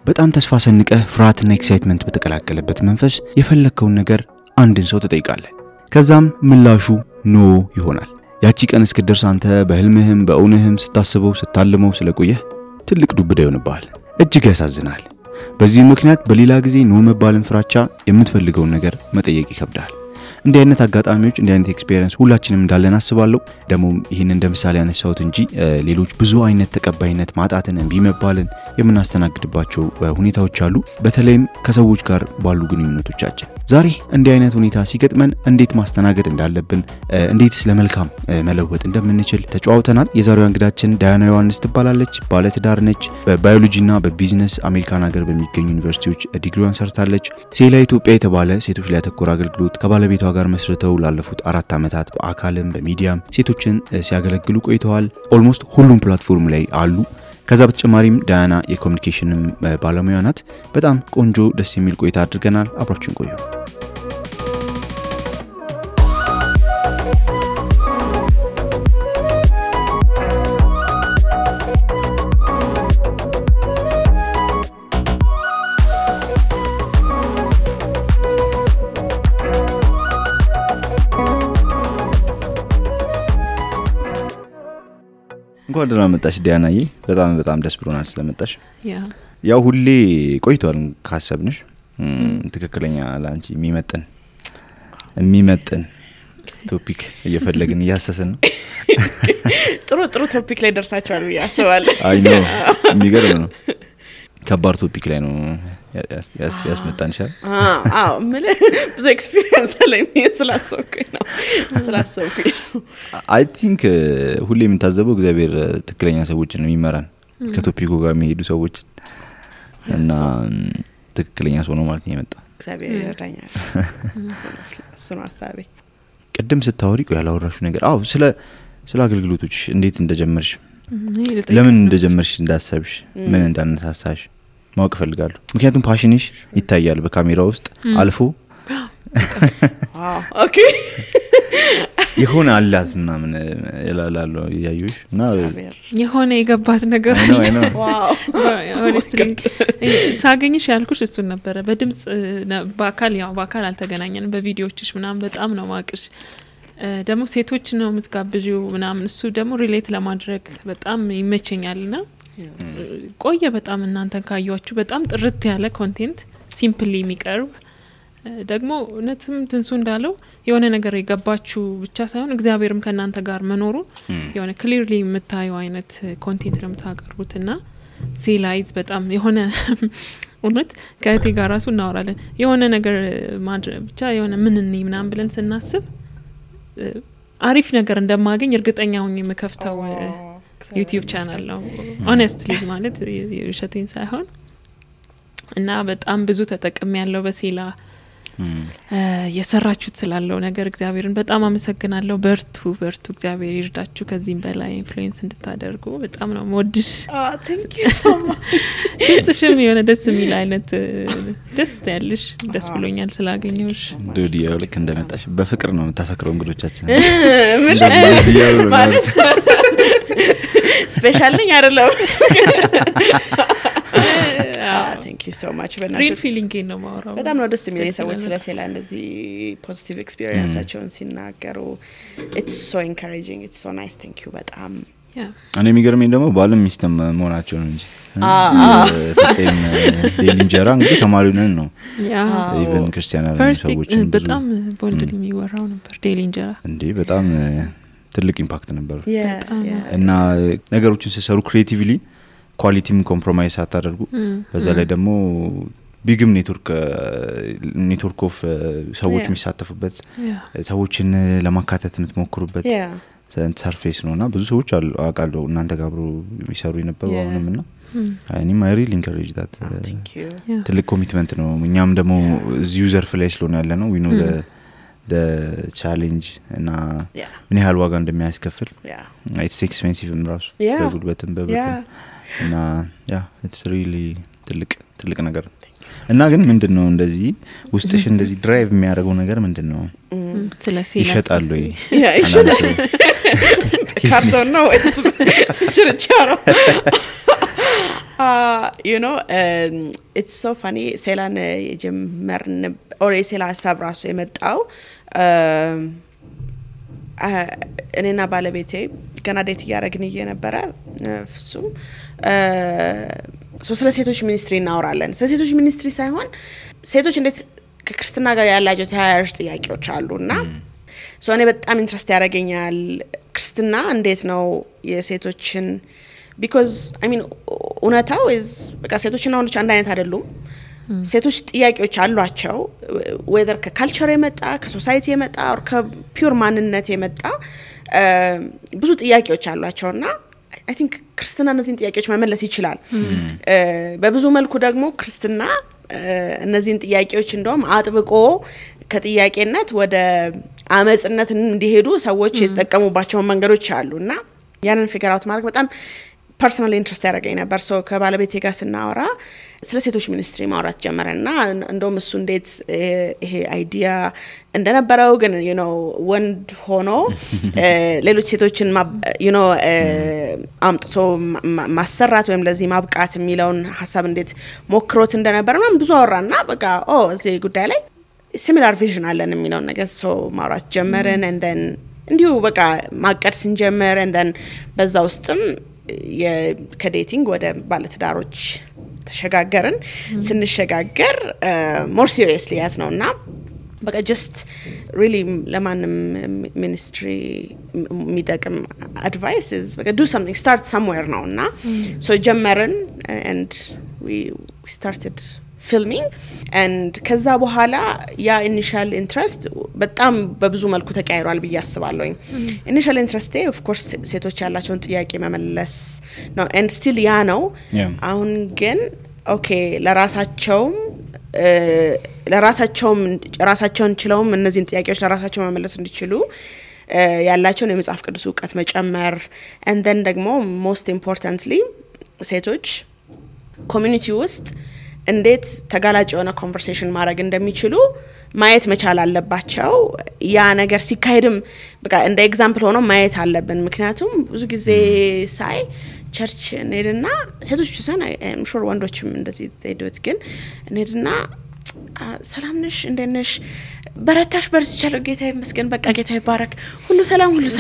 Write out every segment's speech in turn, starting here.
በጣም ተስፋ ሰንቀህ ፍርሃትና ኤክሳይትመንት በተቀላቀለበት መንፈስ የፈለከውን ነገር አንድን ሰው ትጠይቃለህ። ከዛም ምላሹ ኖ ይሆናል። ያቺ ቀን እስክትደርስ አንተ በህልምህም በእውነህም ስታስበው ስታልመው ስለቆየህ ትልቅ ዱብዳ ይሆንብሃል። እጅግ ያሳዝናል። በዚህ ምክንያት በሌላ ጊዜ ኖ መባልን ፍራቻ የምትፈልገውን ነገር መጠየቅ ይከብዳል። እንዲህ አይነት አጋጣሚዎች እንዲህ አይነት ኤክስፒሪየንስ ሁላችንም እንዳለን አስባለሁ። ደግሞ ይሄን እንደምሳሌ ያነሳሁት እንጂ ሌሎች ብዙ አይነት ተቀባይነት ማጣትን እንቢ መባልን የምናስተናግድባቸው ሁኔታዎች አሉ፣ በተለይም ከሰዎች ጋር ባሉ ግንኙነቶቻችን። ዛሬ እንዲህ አይነት ሁኔታ ሲገጥመን እንዴት ማስተናገድ እንዳለብን፣ እንዴትስ ለመልካም መለወጥ እንደምንችል ተጫውተናል። የዛሬው እንግዳችን ዳያና ዮሐንስ ትባላለች። ባለትዳር ነች። በባዮሎጂና በቢዝነስ አሜሪካን ሀገር በሚገኙ ዩኒቨርሲቲዎች ዲግሪዋን ሰርታለች። ሴላ ኢትዮጵያ የተባለ ሴቶች ላይ ያተኮረ አገልግሎት ከባለቤቷ ጋር መስርተው ላለፉት 4 ዓመታት በአካልም በሚዲያም ሴቶችን ሲያገለግሉ ቆይተዋል። ኦልሞስት ሁሉም ፕላትፎርም ላይ አሉ። ከዛ በተጨማሪም ዳያና የኮሙኒኬሽን ባለሙያ ናት። በጣም ቆንጆ ደስ የሚል ቆይታ አድርገናል። አብራችሁን ቆዩ። እንኳን ደህና መጣሽ ዳያናዬ። በጣም ደስ ብሎናል ስለመጣሽ። ያው ሁሌ ቆይቷል ካሰብንሽ ትክክለኛ ላንቺ የሚመጥን ቶፒክ እየፈለግን እያሰሰን ነው። ጥሩ ቶፒክ ላይ ደርሳችኋል ብዬ አስባለሁ። አይ ነው የሚገርም ነው። ከባድ ቶፒክ ላይ ነው ያስመጣንሻል። ብዙ ኤክስፒሪየንስ አለኝ ስላሰብኩኝ ነው። አይ ቲንክ ሁሌ የምታዘበው እግዚአብሔር ትክክለኛ ሰዎችን ነው የሚመራን ከቶፒኩ ጋር የሚሄዱ ሰዎች እና ትክክለኛ ሰው ነው ማለት ነው የመጣው። እግዚአብሔር ይረዳኛል። እሱ ነው ሐሳቤ። ቅድም ስታወሪ ያላወራሹ ነገር ስለ አገልግሎቶች እንዴት እንደጀመርሽ፣ ለምን እንደጀመርሽ፣ እንዳሰብሽ፣ ምን እንዳነሳሳሽ ማወቅ ፈልጋለሁ። ምክንያቱም ፓሽንሽ ይታያል በካሜራ ውስጥ አልፎ። ኦኬ የሆነ አላዝ ምናምን ይላላሉ ያዩሽ እና የሆነ የገባት ነገር ነው። ዋው ሆነስትሊ ሳገኝሽ ያልኩሽ እሱን ነበር። በድምጽ በአካል አልተገናኘንም። በቪዲዮዎችሽ ምናምን በጣም ነው ማቅሽ። ደግሞ ሴቶች ነው የምትጋብጂው ምናምን፣ እሱ ደግሞ ሪሌት ለማድረግ በጣም ይመቸኛልና ቆየ በጣም እናንተን ካያችሁ በጣም ጥርት ያለ ኮንቴንት ሲምፕሊ የሚቀርብ ደግሞ እነትም ትንሱ እንዳለው የሆነ ነገር የገባችሁ ብቻ ሳይሆን እግዚአብሔርም ከናንተ ጋር መኖሩ የሆነ ክሊርሊ የምታየው አይነት ኮንቴንት ነው የምታቀርቡትና ሴላይዝ በጣም የሆነ እውነት ከእቴ ጋር ራሱ እናወራለን። የሆነ ነገር ማድረግ ብቻ የሆነ ምንኒ ምናምን ብለን ስናስብ አሪፍ ነገር እንደማገኝ እርግጠኛ ሆኜ የምከፍተው ዩቲዩብ ቻናል ነው ሆነስትሊ ማለት የውሸቴን ሳይሆን እና በጣም ብዙ ተጠቅሜ ያለው በሴላ የሰራችሁት ስላለው ነገር እግዚአብሔርን በጣም አመሰግናለሁ። በርቱ እግዚአብሔር ይርዳችሁ ከዚህም በላይ ኢንፍሉዌንስ እንድታደርጉ። በጣም ነው ሞድሽ። thank you so much። እሺም የሆነ ደስ የሚል አይነት ደስ ያለሽ ደስ ብሎኛል ስላገኘሁሽ። ዱዲያው ልክ እንደመጣሽ በፍቅር ነው የምታሰክረው እንግዶቻችን ማለት ስፔሻል ነኝ አይደለም። thank you so much። real feeling ነው ማውራው። በጣም ነው ደስ የሚለኝ ሰዎች ስለ ሴላ እንደዚህ ፖዚቲቭ ኤክስፒሪየንሳቸውን ሲናገሩ። it's so encouraging, it's so nice. thank you በጣም እኔ የሚገርመኝ ደግሞ ባለም ሚስተም መሆናቸው ነው እንጂ ፍፄም ዴሊንጀራ እንግዲህ ተማሪው ነው ኢቨን ክርስቲያናል ሰዎች በጣም ቦልድሊ የሚወራው ነበር ዴሊንጀራ እንዴ በጣም ትልቅ ኢምፓክት ነበር። እና ነገሮችን ሲሰሩ ክሪኤቲቭሊ ኳሊቲም ኮምፕሮማይዝ አታደርጉ። በዛ ላይ ደግሞ ቢግም ኔትወርክ ኦፍ ሰዎች የሚሳተፉበት ሰዎችን ለማካተት የምትሞክሩበት ሰርፌስ ነውና ብዙ ሰዎች አውቃለሁ እናንተ ጋር አብሮ የሚሰሩ የነበሩ አሁንምና እኔም አይ ሪሊ ኢንከሬጅ ዳት ትልቅ ኮሚትመንት ነው። እኛም ደግሞ እዚህ ዩዘር ፍላይ ስለሆነ ያለ ነው we know the challenge እና ምን ያህል ዋጋ እንደሚያስከፍል it's expensive ራሱ በጉልበትም በብርም እና it's really ትልቅ ነገር። እና ግን ምንድነው እንደዚህ ውስጥሽ እንደዚህ ድራይቭ የሚያደርገው ነገር ምንድነው? ስለዚህ ይሸጣል ወይ? ካርቶን ነው ወይስ ችርቻሮ? you know it's so funny ሴላን የጀመርን or ሴላ ሀሳብ ራሱ የመጣው እኔና ባለቤቴ ገና ዴት ያረግን እየነበረ ፍጹም ስለ ሴቶች ሚኒስትሪ እናወራለን ስለ ሴቶች ሚኒስትሪ ሳይሆን ሴቶች እንዴት ከክርስትና ጋር ያላቸው ተያያዥ ጥያቄዎች አሉና እኔ በጣም ኢንትረስት ያረጋኛል ክርስትና እንዴት ነው የሴቶችን because I mean እውነታው is በቃ ሴቶችና ወንዶች አንድ አይነት አይደሉም ሴቶች ጥያቄዎች አሏቸው whether ከካልቸር የመጣ ከሶሳይቲ የመጣ or ከፒውር ማንነት የመጣ ብዙ ጥያቄዎች አሏቸውና I think ክርስትና እነዚህን ጥያቄዎች መመለስ ይችላል በብዙ መልኩ ደግሞ ክርስትና እነዚህን ጥያቄዎች እንደውም አጥብቆ ከጥያቄነት ወደ አመጽነት እንዲሄዱ ሰዎች የተጠቀሙባቸው መንገዶች አሉና ያንን ፊገር አውት ማድረግ በጣም ፐርሰናሊ ኢንትረስት ያደረገኝ ነበር ከባለቤቴ ጋር ስናወራ ስለ ሴቶች ሚኒስትሪ ማውራት ጀመረና እንደውም እሱ እንዴት ይሄ አይዲያ እንደነበረው ግን you know ወንድ ሆኖ ሌሎች ሴቶችን you know አምጥቶ ማሰራት ወይም ለዚህ ማብቃት የሚለውን ሐሳብ እንዴት ሞክሮት እንደነበረ ነው ብዙ አወራና በቃ እዚህ ጉዳይ ላይ similar vision አለን የሚለውን ነገር ማውራት ጀመረን and then እንዲሁ በቃ ማቀድ ስንጀምር and then በዛ ውስጥም ከዴቲንግ ወደ ባለትዳሮች ተሸጋገርን ስንሸጋገር more seriously ያስነውና በቃ just really ለማንም ሚኒስትሪ የሚጠቅም advice is በቃ do something start somewhere ነውና so ጀመርን and we started filming and ከዛ በኋላ ያ initial interest በጣም በብዙ መልኩ ተቀይሯል ብዬ አስባለሁ initial interest of course ሴቶች ያላቸውን ጥያቄ መመለስ ነው and still ያ ነው አሁን ግን okay ለራሳቸውን ችለውም እነዚህን ጥያቄዎች ለራሳቸው መመለስ እንዲችሉ ያላቸውን የመጽሐፍ ቅዱስ ዕውቀት መጨመር and then ደግሞ most importantly ሴቶች ኮሚኒቲ ውስጥ እንዴት ተጋላጭ የሆነ ኮንቨርሴሽን ማድረግ እንደሚችሉ ማየት መቻል አለባቸው ያ ነገር ሲካሄድም በቃ እንደ ኤግዛምፕል ሆኖ ማየት አለብን ምክንያቱም ብዙ ጊዜ ሳይ ቸርች ነድና ሴቶች ሲሆን I'm sure ወንዶችም እንደዚህ ሄዱት ግን ነድና ሰላም ነሽ እንደነሽ በረታሽ በርቻለሁ ጌታ ይመስገን በቃ ጌታ ይባረክ ሁሉ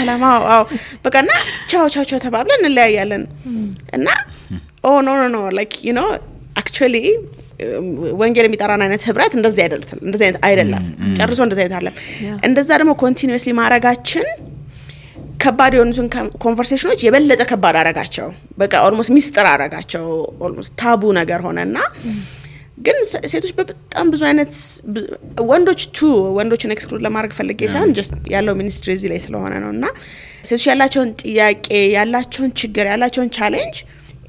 ሰላም አዎ በቃና ቻው ተባብለን እንለያያለን እና no like you know actually ወንጌል የሚጠራና አይነት ህብረት እንደዚህ አይደለም ጨርሶ እንደዚህ አይደለም እንደዛ ደግሞ continuously ማረጋችን ከባድ የሆኑትን ኮንቨርሴሽኖች የበለጠ ከባድ አረጋቸው በቃ almost ሚስጥር አረጋቸው almost ታቡ ነገር ሆነና ግን ሴቶች በጣም ብዙ አይነት ወንዶችን ኤክስክሉድ ለማድረግ ፈልጌ ሳይሆን just ያለው ሚኒስትሪ እዚህ ላይ ስለሆነ ነውና ሴቶች ያላቸውን ጥያቄ ያላቸውን ችግር ያላቸውን ቻሌንጅ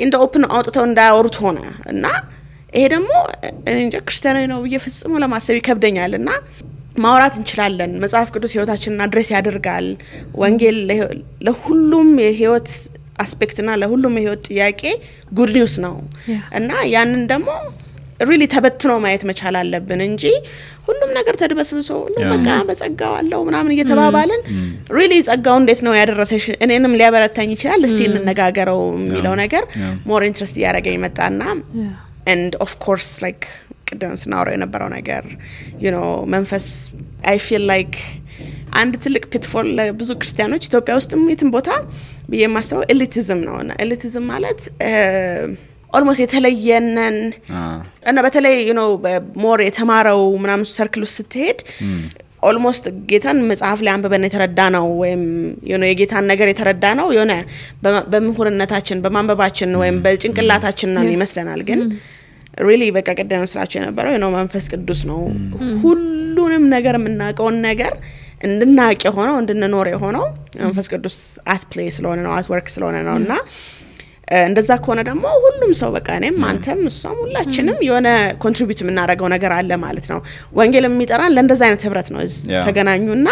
in the open አውጥተው እንዳያወሩት ሆነ እና ይሄ ደግሞ እንጃ ክርስቲያናዊ ነው በየፍጹም ለማሰብ ይከብደኛልና ማውራት እንችላለን መጽሐፍ ቅዱስ ህይወታችንን አድሬስ ያደርጋል ወንጌል ለሁሉም የህይወት አስፔክትና ለሁሉም የህይወት ጥያቄ ጉድ ኒውስ ነው እና ያንን ደግሞ really ተበትኖ ማየት መቻል አለብን እንጂ ሁሉም ነገር ተድበስብሶ በቃ በጸጋው አለው ምናምን እየተባባልን really ጸጋው እንዴት ነው ያደረሰሽ እኔንም ሊያበረታኝ ይችላል እስቲ እንነጋገረው የሚለው ነገር more interest ያረጋኝ መጣና and of course like ቅድም ስናወራው የነበረው ነገር you know መንፈስ I feel like አንድ ትልቅ pitfall ብዙ ክርስቲያኖች ኢትዮጵያ ውስጥም የትም ቦታ በየማሰው elitism ነውና elitism ማለት almost የተለየነን እና በተለይ you know more የተማረው ምናምን ሰርክል ውስጥ ስትሄድ almost ጌታን መጽሐፍ ላይ አንበበን የተረዳ ነው ወይም you know የጌታን ነገር የተረዳ ነው የሆነ በምሁርነታችን በማንበባችን ወይም በጭንቅላታችን ነው ይመስለናል ግን really በቃ ቀደም ስራቸው የነበረው you know መንፈስ ቅዱስ ነው ሁሉንም ነገር የምናውቀው ነገር እንድናውቅ ሆኖ እንድንኖር ሆኖ መንፈስ ቅዱስ at play ስለሆነ ነው at work ስለሆነ ነውና እንደዛ ከሆነ ደግሞ ሁሉም ሰው በቃ እኔም አንተም እሷም ሁላችንም የሆነ ኮንትሪቢዩት የምናደርገው ነገር አለ ማለት ነው ወንጌል የሚጠራን ለእንደዛ አይነት ህብረት ነው ተገናኙና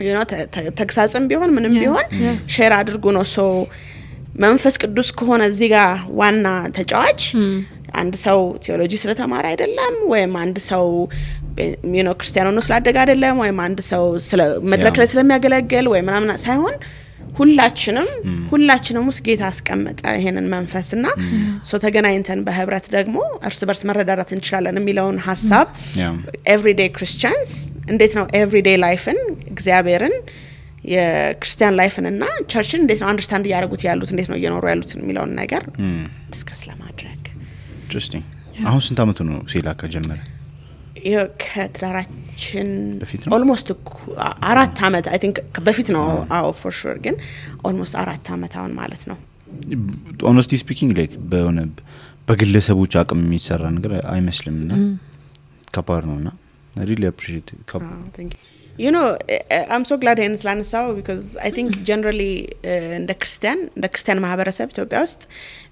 you know ተግሳጽም ቢሆን ምንም ቢሆን ሼር አድርጉ ነው ሶ መንፈስ ቅዱስ ከሆነ እዚህ ጋር ዋና ተጫዋች አንድ ሰው ቴዎሎጂ ስለተማረ አይደለም ወይም አንድ ሰው you know ክርስቲያኖ ነው ስላደገ አይደለም ወይም አንድ ሰው ስለ መድረክ ላይ ስለሚያገለግል ወይ ምናምን ሳይሆን ሁላችንም ውስጥ ጌታ አስቀመጠ ይሄንን መንፈስና ሶ ተገናኝተን በህብረት ደግሞ እርስ በርስ መረዳዳት እንችላለን የሚለውን ሐሳብ ኤቭሪዴይ ክርስቲያንስ እንዴት ነው ኤቭሪዴይ ላይፍን እግዚአብሔርን የክርስቲያን ላይፍን እና ቸርችን እንዴት ነው አንደርስታንድ ያደርጉት ያሉት እንዴት ነው እየኖሩ ያሉት የሚለውን ነገር ዲስከስ ለማድረግ ኢንትረስቲንግ አሁን ስንት አመቱ ነው ሲላ ከጀመረ ከትዳራችን ኦልሞስት 4 አመት አይ ቲንክ በፊት ነው አዎ ፎር ሹር ግን ኦልሞስት 4 አመት አሁን ማለት ነው ሆነስቲ ስፒኪንግ ላይክ በግለሰቦች አቅም የሚሰራ ነገር አይመስልምና ከባድ ነውና I really appreciate it. Thank you. You know, I'm so glad in Slansao because I think generally in the Christian ማህበረሰብ ኢትዮጵያ ውስጥ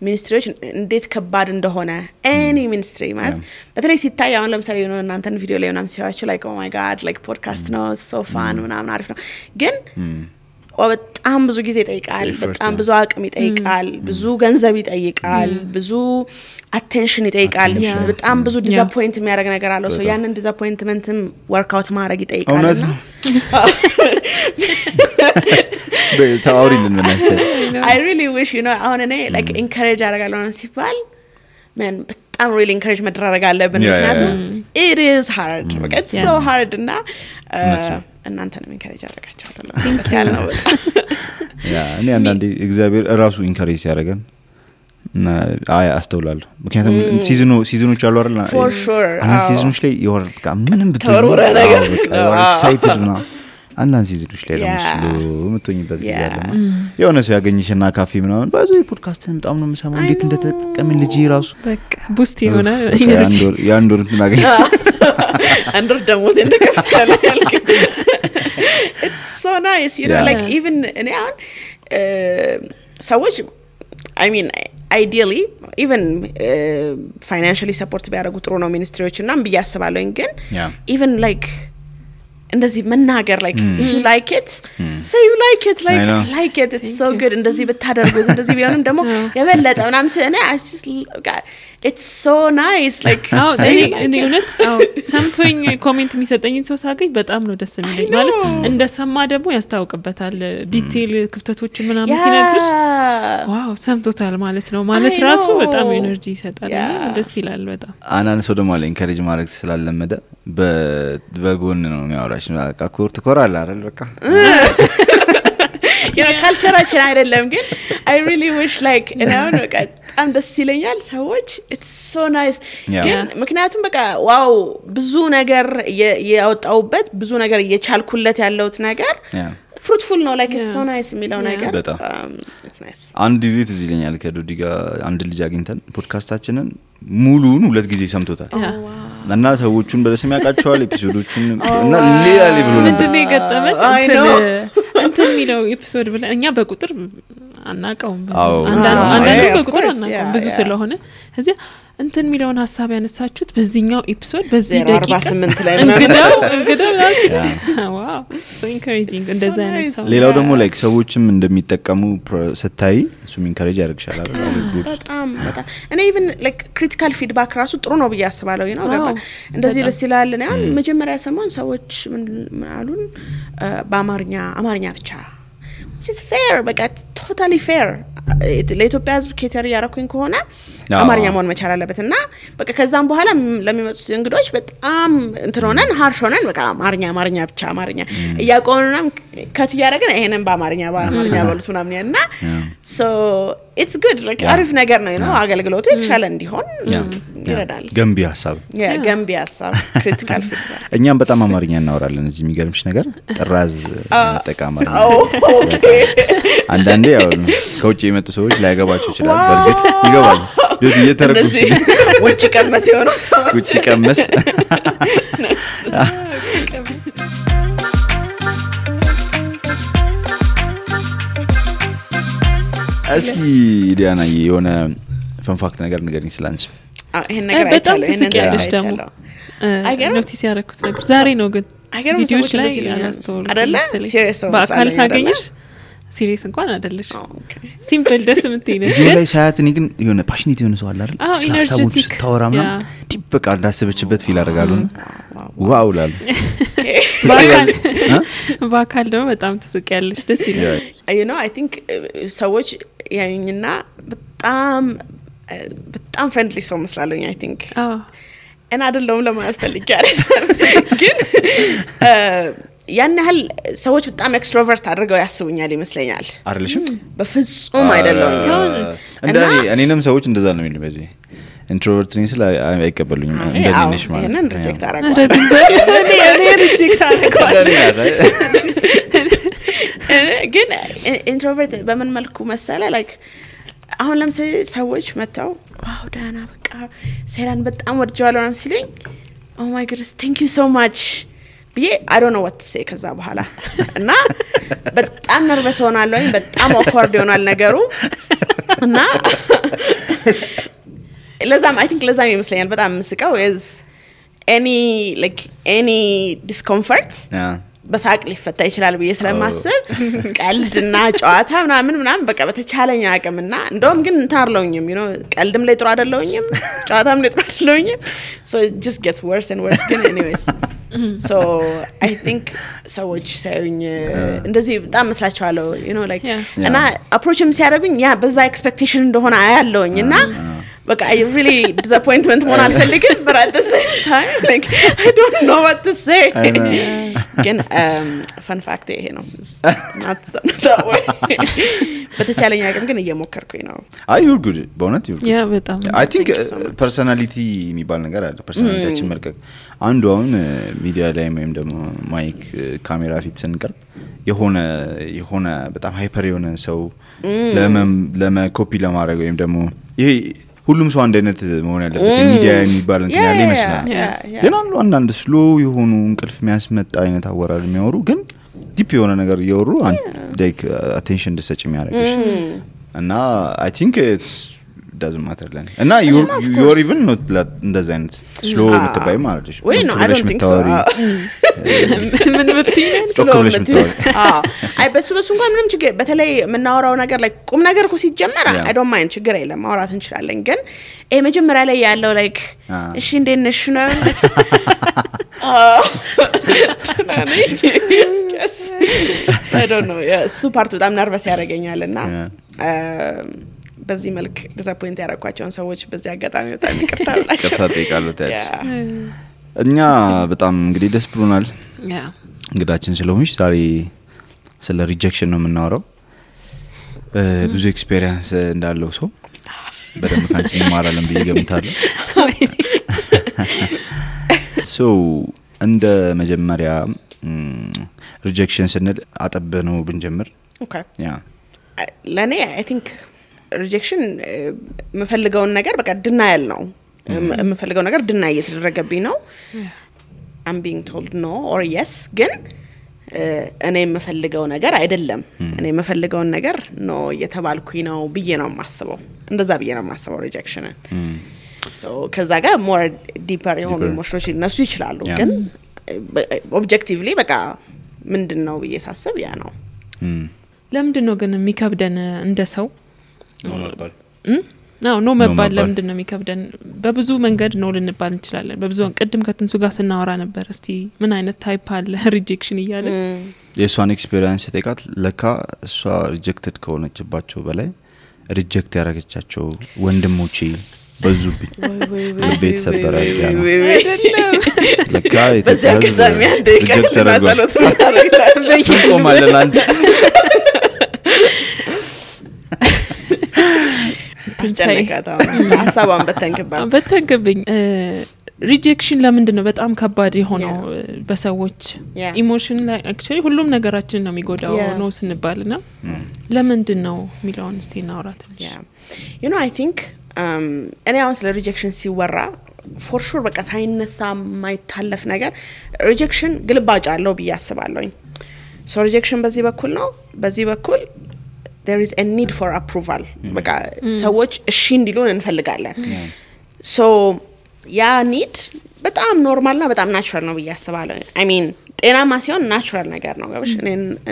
ሚኒስትሪዎች እንዴት ከባድ እንደሆነ any ministry ማለት በተለይ ሲታይ አሁን ለምሳሌ ነው እናንተን ቪዲዮ ላይ ምናምን ሲያዩአችሁ like oh my god like podcast ነው so fun ምናምን አሪፍ ነው ግን በጣም ብዙ ጊዜ ይጠይቃል በጣም ብዙ አቅም ይጠይቃል ብዙ ገንዘብ ይጠይቃል ብዙ አቴንሽን ይጠይቃል በጣም ብዙ ዲዛፖይንት የሚያደርግ ነገር አለው ሶ ያንን ዲዛፖይንትመንትም ወርክ አውት ማድረግ ይጠይቃልና ታውሪልን መናስተር I really wish you know አሁን እኔ like encourage አደርጋለሁ ሲባል man በጣም really encourage መደረግ አለብን ምክንያቱም it is hard it's so hard እና እናንተንም ኢንካሬጅ አደረጋችኋለሁ ያለው ያ እኔ አንዳንዴ እግዚአብሔር ራሱ ኢንካሬጅ ያደርገን አይ አስተውላለሁ ምክንያቱም ሲዝኖች አሉ አይደል for sure እና ሲዝኖች ላይ ይወር በቃ ምንም ብትወራ ነገር ኤክሳይትድ ነው አንዳንድ ሲዝኖች ላይ ደግሞ ምትሆኝበት ጊዜ አለና የሆነ ሰው ያገኝሽና ካፌ ምናምን ባዙ ፖድካስትን በጣም ነው የምሰማው እንዴት እንደተጠቀምን ልጅ ራሱ በቃ ቡስት የሆነ ያንዶር እንትናገኝ አንዶር ደግሞ እንደከፈለ ያልክ it's so nice you know like even እኔ አሁን ሰዎች I mean ideally even financially support ቢያደርጉ ጥሩ ነው ሚኒስትሪዎችና ብያስባለሁ ግን even like እንደዚህ መናገር like if you like it say you like it like it it's so good እንደዚህ ብታደርጉት እንደዚህ ቢሆንም ደግሞ የበለጠ ምናምን እኔ it's so nice like እኔ እውነት ሰምቶኝ ኮሜንት የሚሰጠኝን ሰው ሳገኝ በጣም ነው ደስ የሚለኝ ማለት እንደሰማ ደግሞ ያስታውቅበታል ዲቴል ክፍተቶችን ምናምን ሲነግርሽ ዋው ሰምቶታል ማለት ነው ማለት ራሱ በጣም ኤነርጂ ይሰጣል ደስ ይላል በጣም አናን ሰው ደግሞ ኢንካሬጅ ማድረግ ስላለመደ በጎን ነው የሚያወራሽ በቃ ኮርት ኮራል አይደል በቃ you know ካልቸራችን አይደለም ግን I really wish like you know በቃ በጣም ደስ ይለኛል ሰዎች it's so nice ግን ምክንያቱም በቃ ዋው ብዙ ነገር ያወጣውበት ብዙ ነገር እየቻልኩለት ያለውት ነገር fruitful ነው like it's so nice የሚለው ነገር it's nice አንድ ጊዜ ትዝ ይለኛል ከዶዲ ጋር አንድ ልጅ አግኝተን ፖድካስታችንን ሙሉን 2 ጊዜ ሰምቶታል እና ሰዎቹን በደስም ያቃቸዋል ኤፒሶዶቹን እና ሌላ ሌቭል ነው ምንድነው የገጠመን እንትን የሚለው ኤፒሶድ ብለን እኛ በቁጥር አናቀውም አንዳንዱ በቁጥር አናቀውም ብዙ ስለሆነ እዚያ እንትን የሚለውን ሐሳብ ያነሳችሁት በዚህኛው ኤፒሶድ በዚህ ደቂቃ 48 ላይ እንግዳው ራሱ ዋው so encouraging እንደዛ አይነት ሰው ሌላው ደግሞ ላይክ ሰዎችም እንደሚጠቀሙ ስታይ እሱም ኢንካሬጅ ያደርግሻል አይደል በጣም እኔ even like critical feedback ራሱ ጥሩ ነው ብዬ አስባለሁ you know እንደዚህ ደስ ይላል ነው መጀመሪያ ሰሞን ሰዎች ምን አሉን በአማርኛ ብቻ which is fair በቃ totally fair ለኢትዮጵያ ህዝብ ኬተር ያረኩኝ ከሆነ አማርኛ መሆን መቻል አለበትና በቃ ከዛም በኋላ ለሚመጡት እንግዶች በጣም እንትሮነን ሃርሾነን በቃ አማርኛ ብቻ አማርኛ ያቆንና ከት ያረጋን ይሄንን በአማርኛ ባሉት ምናምን ያና so it's good like አሪፍ ነገር ነው ነው አገልግሎቱ የተሻለ እንዲሆን ይረዳል ገንቢ ሐሳብ ገንቢ ሐሳብ critical feedback እኛም በጣም አማርኛ እናወራለን እዚህ የሚገርምሽ ነገር ጥራዝ ተጠቃማሪ አንዳንዴ ያው ከውጪ የመጡ ሰዎች ላይገባቸው ይችላል በርግጥ ይገባል ዶዲ እየተረጉም ውጪ ቀመስ ይሆነው ውጪ ቀመስ እስኪ ዲያና የሆነ ፈንፋክት ነገር ንገሪኝ ስላንቺ ይሄን ነገር በጣም ትስቂያለሽ ደግሞ ኖቲስ ያደረኩት ነገር ዛሬ ነው ግን ቪዲዮዎች ላይ ያስተውሉ በአካል ሳገኝሽ ሲሪየስ እንኳን አይደለሽ ሲምፕል ደስ የምትይነሽ እዚህ ላይ ሳያት እኔ ግን የሆነ ፓሽኔት የሆነ ሰው አለ አይደል ሳሳቡት ታወራምና ዲፕ በቃ እንዳሰበችበት ፊል አደርጋለሁ ዋው ላል ባካል ደግሞ በጣም ተስቂያለሽ ደስ ይላል you know I think ሰዎች ያዩኝና በጣም ፍሬንድሊ ሰው መስላለኝ I think እና አይደለም ለማለት ፈልጋለሁ ግን ያን ያህል ሰዎች በጣም ኤክስትሮቨርት አድርገው ያስቡኛል ይመስለኛል አይደልሽም በፍጹም አይደለም እኔንም ሰዎች እንደዛ ነው የሚሉኝ በዚህ ኢንትሮቨርት ነኝ ስለ አይቀበሉኝም እንደነሽ ማለት እኔን ሪጀክት አደረጋለሁ እንደዚህ እኔ ሪጀክት አደረጋለሁ ግን ኢንትሮቨርት በምን መልኩ መሰለ ላይክ አሁን ለምሳሌ ሰዎች መጣው ዋው ዳና በቃ ሴራን በጣም ወድጃለሁ ነው ሲለኝ oh my goodness thank you so much I don't know what to say ከዛ በኋላ እና በጣም ነርቨስ ሆናለሁ በጣም awkward ይሆናል ነገሩ እና ለዛም I think ለዛም ይመስለኛል በጣም መስቀው is any discomfort በሳቅ ሊፈታ ይችላል ብዬ ስለማስብ ቀልድና ጨዋታ ምናምን በቃ በተቻለኝ አቅምና እንደውም ግን እንታርለውኝም you know ቀልድም ላይ ጥሩ አይደለውኝም ጨዋታም ላይ ጥሩ አይደለውኝም so it just gets worse and worse ግን anyways so I think ሰዎች ሳይኝ እንደዚህ በጣም መስላችኋለሁ you know like እና approachም ሲያደርጉኝ ያ በዛ expectation እንደሆነ አያለውኝና በቃ I really disappointment ሆነ አልፈልግም but at the same time like I don't know what to say ግን fun fact ይሄ ነው not that way በተቻለኝ አቅም ግን እየሞከርኩኝ ነው you're good በእውነት you're good yeah በጣም I think personality የሚባል ነገር አለ personality መልቀቅ አንዱ አሁን ሚዲያ ላይ ወይም ደግሞ ማይክ ካሜራ ፊት ስንቀርብ የሆነ በጣም ሃይፐር የሆነ ሰው ለመኮፒ ለማድረግ ወይም ደግሞ ይሄ ሁሉም ሰው አንድ አይነት መሆን ያለበት ሚዲያ የሚባል እንትን ያለ ይመስላል ግን አንዳንድ ስሎ የሆኑ እንቅልፍ የሚያስመጣ አይነት አወራር የሚያወሩ ግን ዲፕ የሆነ ነገር እያወሩ like attention እንድትሰጪ የሚያደርግሽ እና I think it doesn't matter then እና you're even not እንደዛ አይነት slow የምትባይ ማለት ነው ወይ no I don't think so ምን ምትይኝ slow አይ በሱ እንኳን ምንም ችግር በተለይ የምናወራው ነገር ላይ ቁም ነገር እኮ ሲጀመር I don't mind ችግር የለም ማውራት እንችላለን ግን መጀመሪያ ላይ ያለው like እሺ እንዴት ነሽ ነው I don't know እሱ ፓርት በጣም ነርቨስ ያደርገኛልና በዚህ መልክ ዲስአፖይንት ያደረኳቸውን ሰዎች በዚህ አጋጣሚ በጣም ይቅርታ ብላችሁ ይቅርታ ጠይቃለሁ እኛ በጣም እንግዲህ ደስ ብሎናል እንግዳችን ስለሆንሽ ዛሬ ስለ ሪጀክሽን ነው የምናወራው ብዙ ኤክስፒሪየንስ እንዳለው ሰው በደንብ ካንቺ እንማራለን ብዬ ገምታለሁ so እንደ መጀመሪያ ሪጀክሽን ስንል አጠበነው ብንጀምር okay ለኔ I think rejection መፈልገውን ነገር በቃ denial ነው መፈልገው ነገር deny እየተደረገብኝ ነው I'm being told no or yes ግን እኔ መፈልገው ነገር አይደለም እኔ መፈልገው ነገር no እየተባልኩኝ ነው ብዬ ነው ማስበው እንደዛ ብዬ ነው ማስበው rejection so ከዛ ጋር more deeper የሆኑ ኢሞሽኖች እነሱ ይችላሉ ግን objectively በቃ ምንድነው ብዬ ሳስብ ያ ነው ለምንድነው ግን የሚከብደን እንደ ሰው ነው መባል ለምንድነው የሚከብደን በብዙ መንገድ ነው ልንባል እንችላለን በብዙ ቅድም ከትንሱ ጋር ስናወራ ነበር እስቲ ምን አይነት ታይፕ አለ ሪጀክሽን ይያለ የሷን ኤክስፒሪየንስ ተቃት ለካ እሷ ሪጀክትድ ከሆነችባቸው በላይ ሪጀክት ያረጋቻቸው ወንድሞቼ በዙብኝ ለቤት ሰበራ ያለ ለካ በዛከዛም ያንደ ከማሰሎት ማረጋላችሁ በይቆማለላን ተንጨነቃታው ሐሳቧን በተንከብኝ ሪጀክሽን ለምንድነው በጣም ከባድ የሆነው በሰዎች ኢሞሽን ላይ actually ሁሉም ነገራችን ነው የሚጎዳው ነው ስንባልና ለምንድነው ሚሊዮን ስቴና አውራት you know I think እኔ አሁን ስለ ሪጀክሽን ሲወራ for sure በቃ ሳይነሳ ማይታለፍ ነገር ሪጀክሽን ግልባጭ አለው ብዬ አስባለሁኝ so rejection በዚህ በኩል ነው በዚህ በኩል there is a need for approval በቃ ሰዎች እሺ እንዲሉን እንፈልጋለን so ያ need በጣም ኖርማልና በጣም ናቹራል ነው ብያስባለሁ I mean ጤናማ ሲሆን ናቹራል ነገር ነው ጋብሽ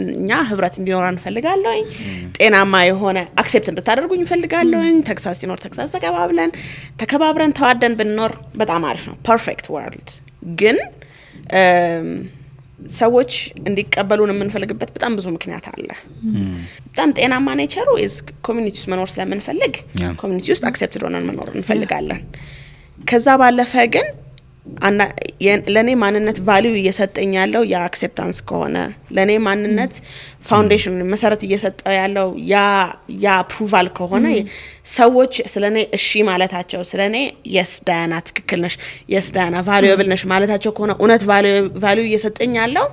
እኛ ህብረት እንዲኖር እንፈልጋለሁ ጤናማ የሆነ አክሴፕት እንድታደርጉኝ እንፈልጋለሁ ተክሳስ ሲኖር ተክሳስ ተከባብረን ተዋደን ብንኖር በጣም አሪፍ ነው ፐርፌክት ወርልድ ግን ሰዎች እንዲቀበሉን የምንፈልግበት በጣም ብዙ ምክንያት አለ በጣም ጤናማ ኔቸሩ is ኮሚኒቲ ውስጥ መኖር ስለምንፈልግ ኮሚኒቲ ውስጥ አክሴፕትድ ሆነን መኖር እንፈልጋለን ከዛ ባለፈ ግን ለኔ ማንነት ቫልዩ እየሰጠኝ ያለው ያ አክሴፕታንስ ከሆነ ለኔ ማንነት ፋውንዴሽን መሰረት እየሰጠው ያለው ያ አፕሩቫል ከሆነ ሰዎች ስለኔ እሺ ማለታቸው ስለኔ yes ዳያና ትክክል ነሽ yes ዳያና ቫልዩብል ነሽ ማለታቸው ከሆነ እውነት ቫልዩ እየሰጠኝ ያለው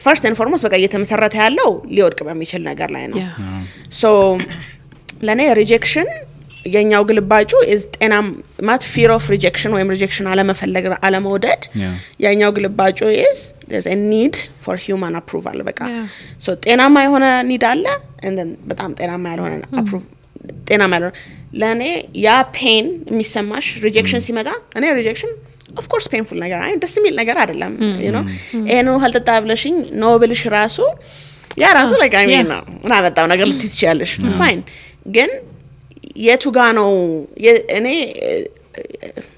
first and foremost በቃ እየተመሰረተ ያለው ሊወድቅ በሚችል ነገር ላይ ነው so ለኔ rejection የኛው ግልባጩ is ጤናም ማት fear of rejection ወይም rejection አለመፈለግ አለመውደድ የኛው ግልባጩ is there's a need for human approval በቃ so ጤናማ የሆነ need አለ and then በጣም ጤናማ ያልሆነ ጤናማ ያልሆነ ለኔ ያ pain የሚሰማሽ rejection ሲመጣ እኔ rejection of course painful ነገር አይ ደስ የሚል ነገር አይደለም you know ነው haltata ብለሽኝ no ብልሽ ራሱ ያ ራሱ like I mean እና በጣም ነገር ልትይቻለሽ fine ግን የቱ ጋር ነው እኔ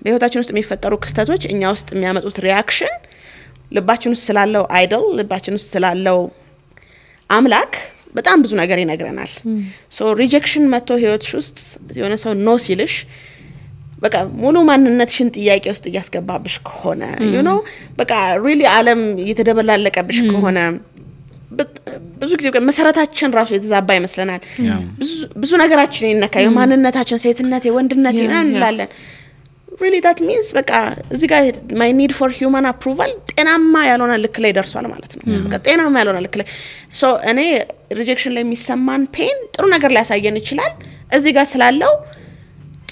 በህይወታችን ውስጥ የሚፈጠሩ ክስተቶች እኛ ውስጥ የሚያመጡት ሪአክሽን ልባችን ውስጥ ስላለው አይደል ልባችን ውስጥ ስላለው አምላክ በጣም ብዙ ነገር ይነግረናል ሶ ሪጀክሽን መጥቶ ህይወትሽ ውስጥ የሆነ ሰው ኖ ሲልሽ በቃ ሙሉ ማንነትሽን ጥያቄ ውስጥ እያስገባብሽ ከሆነ you know በቃ really ዓለም እየተደበላለቀብሽ ከሆነ ብዙ ጊዜ መሰረታችን ራሱ የተዛባ ይመስለናል ብዙ ነገራችን ይነካዩ ማንነታችን ሴትነት የወንድነት ይናላለን really that means በቃ እዚህ ጋር my need for human approval ጤናማ ያልሆነ ልክ ላይ ደርሷል ማለት ነው በቃ ጤናማ ያልሆነ ልክ ላይ so እኔ rejection ላይ የሚሰማን pain ጥሩ ነገር ሊያሳየን ይችላል እዚህ ጋር ስላለው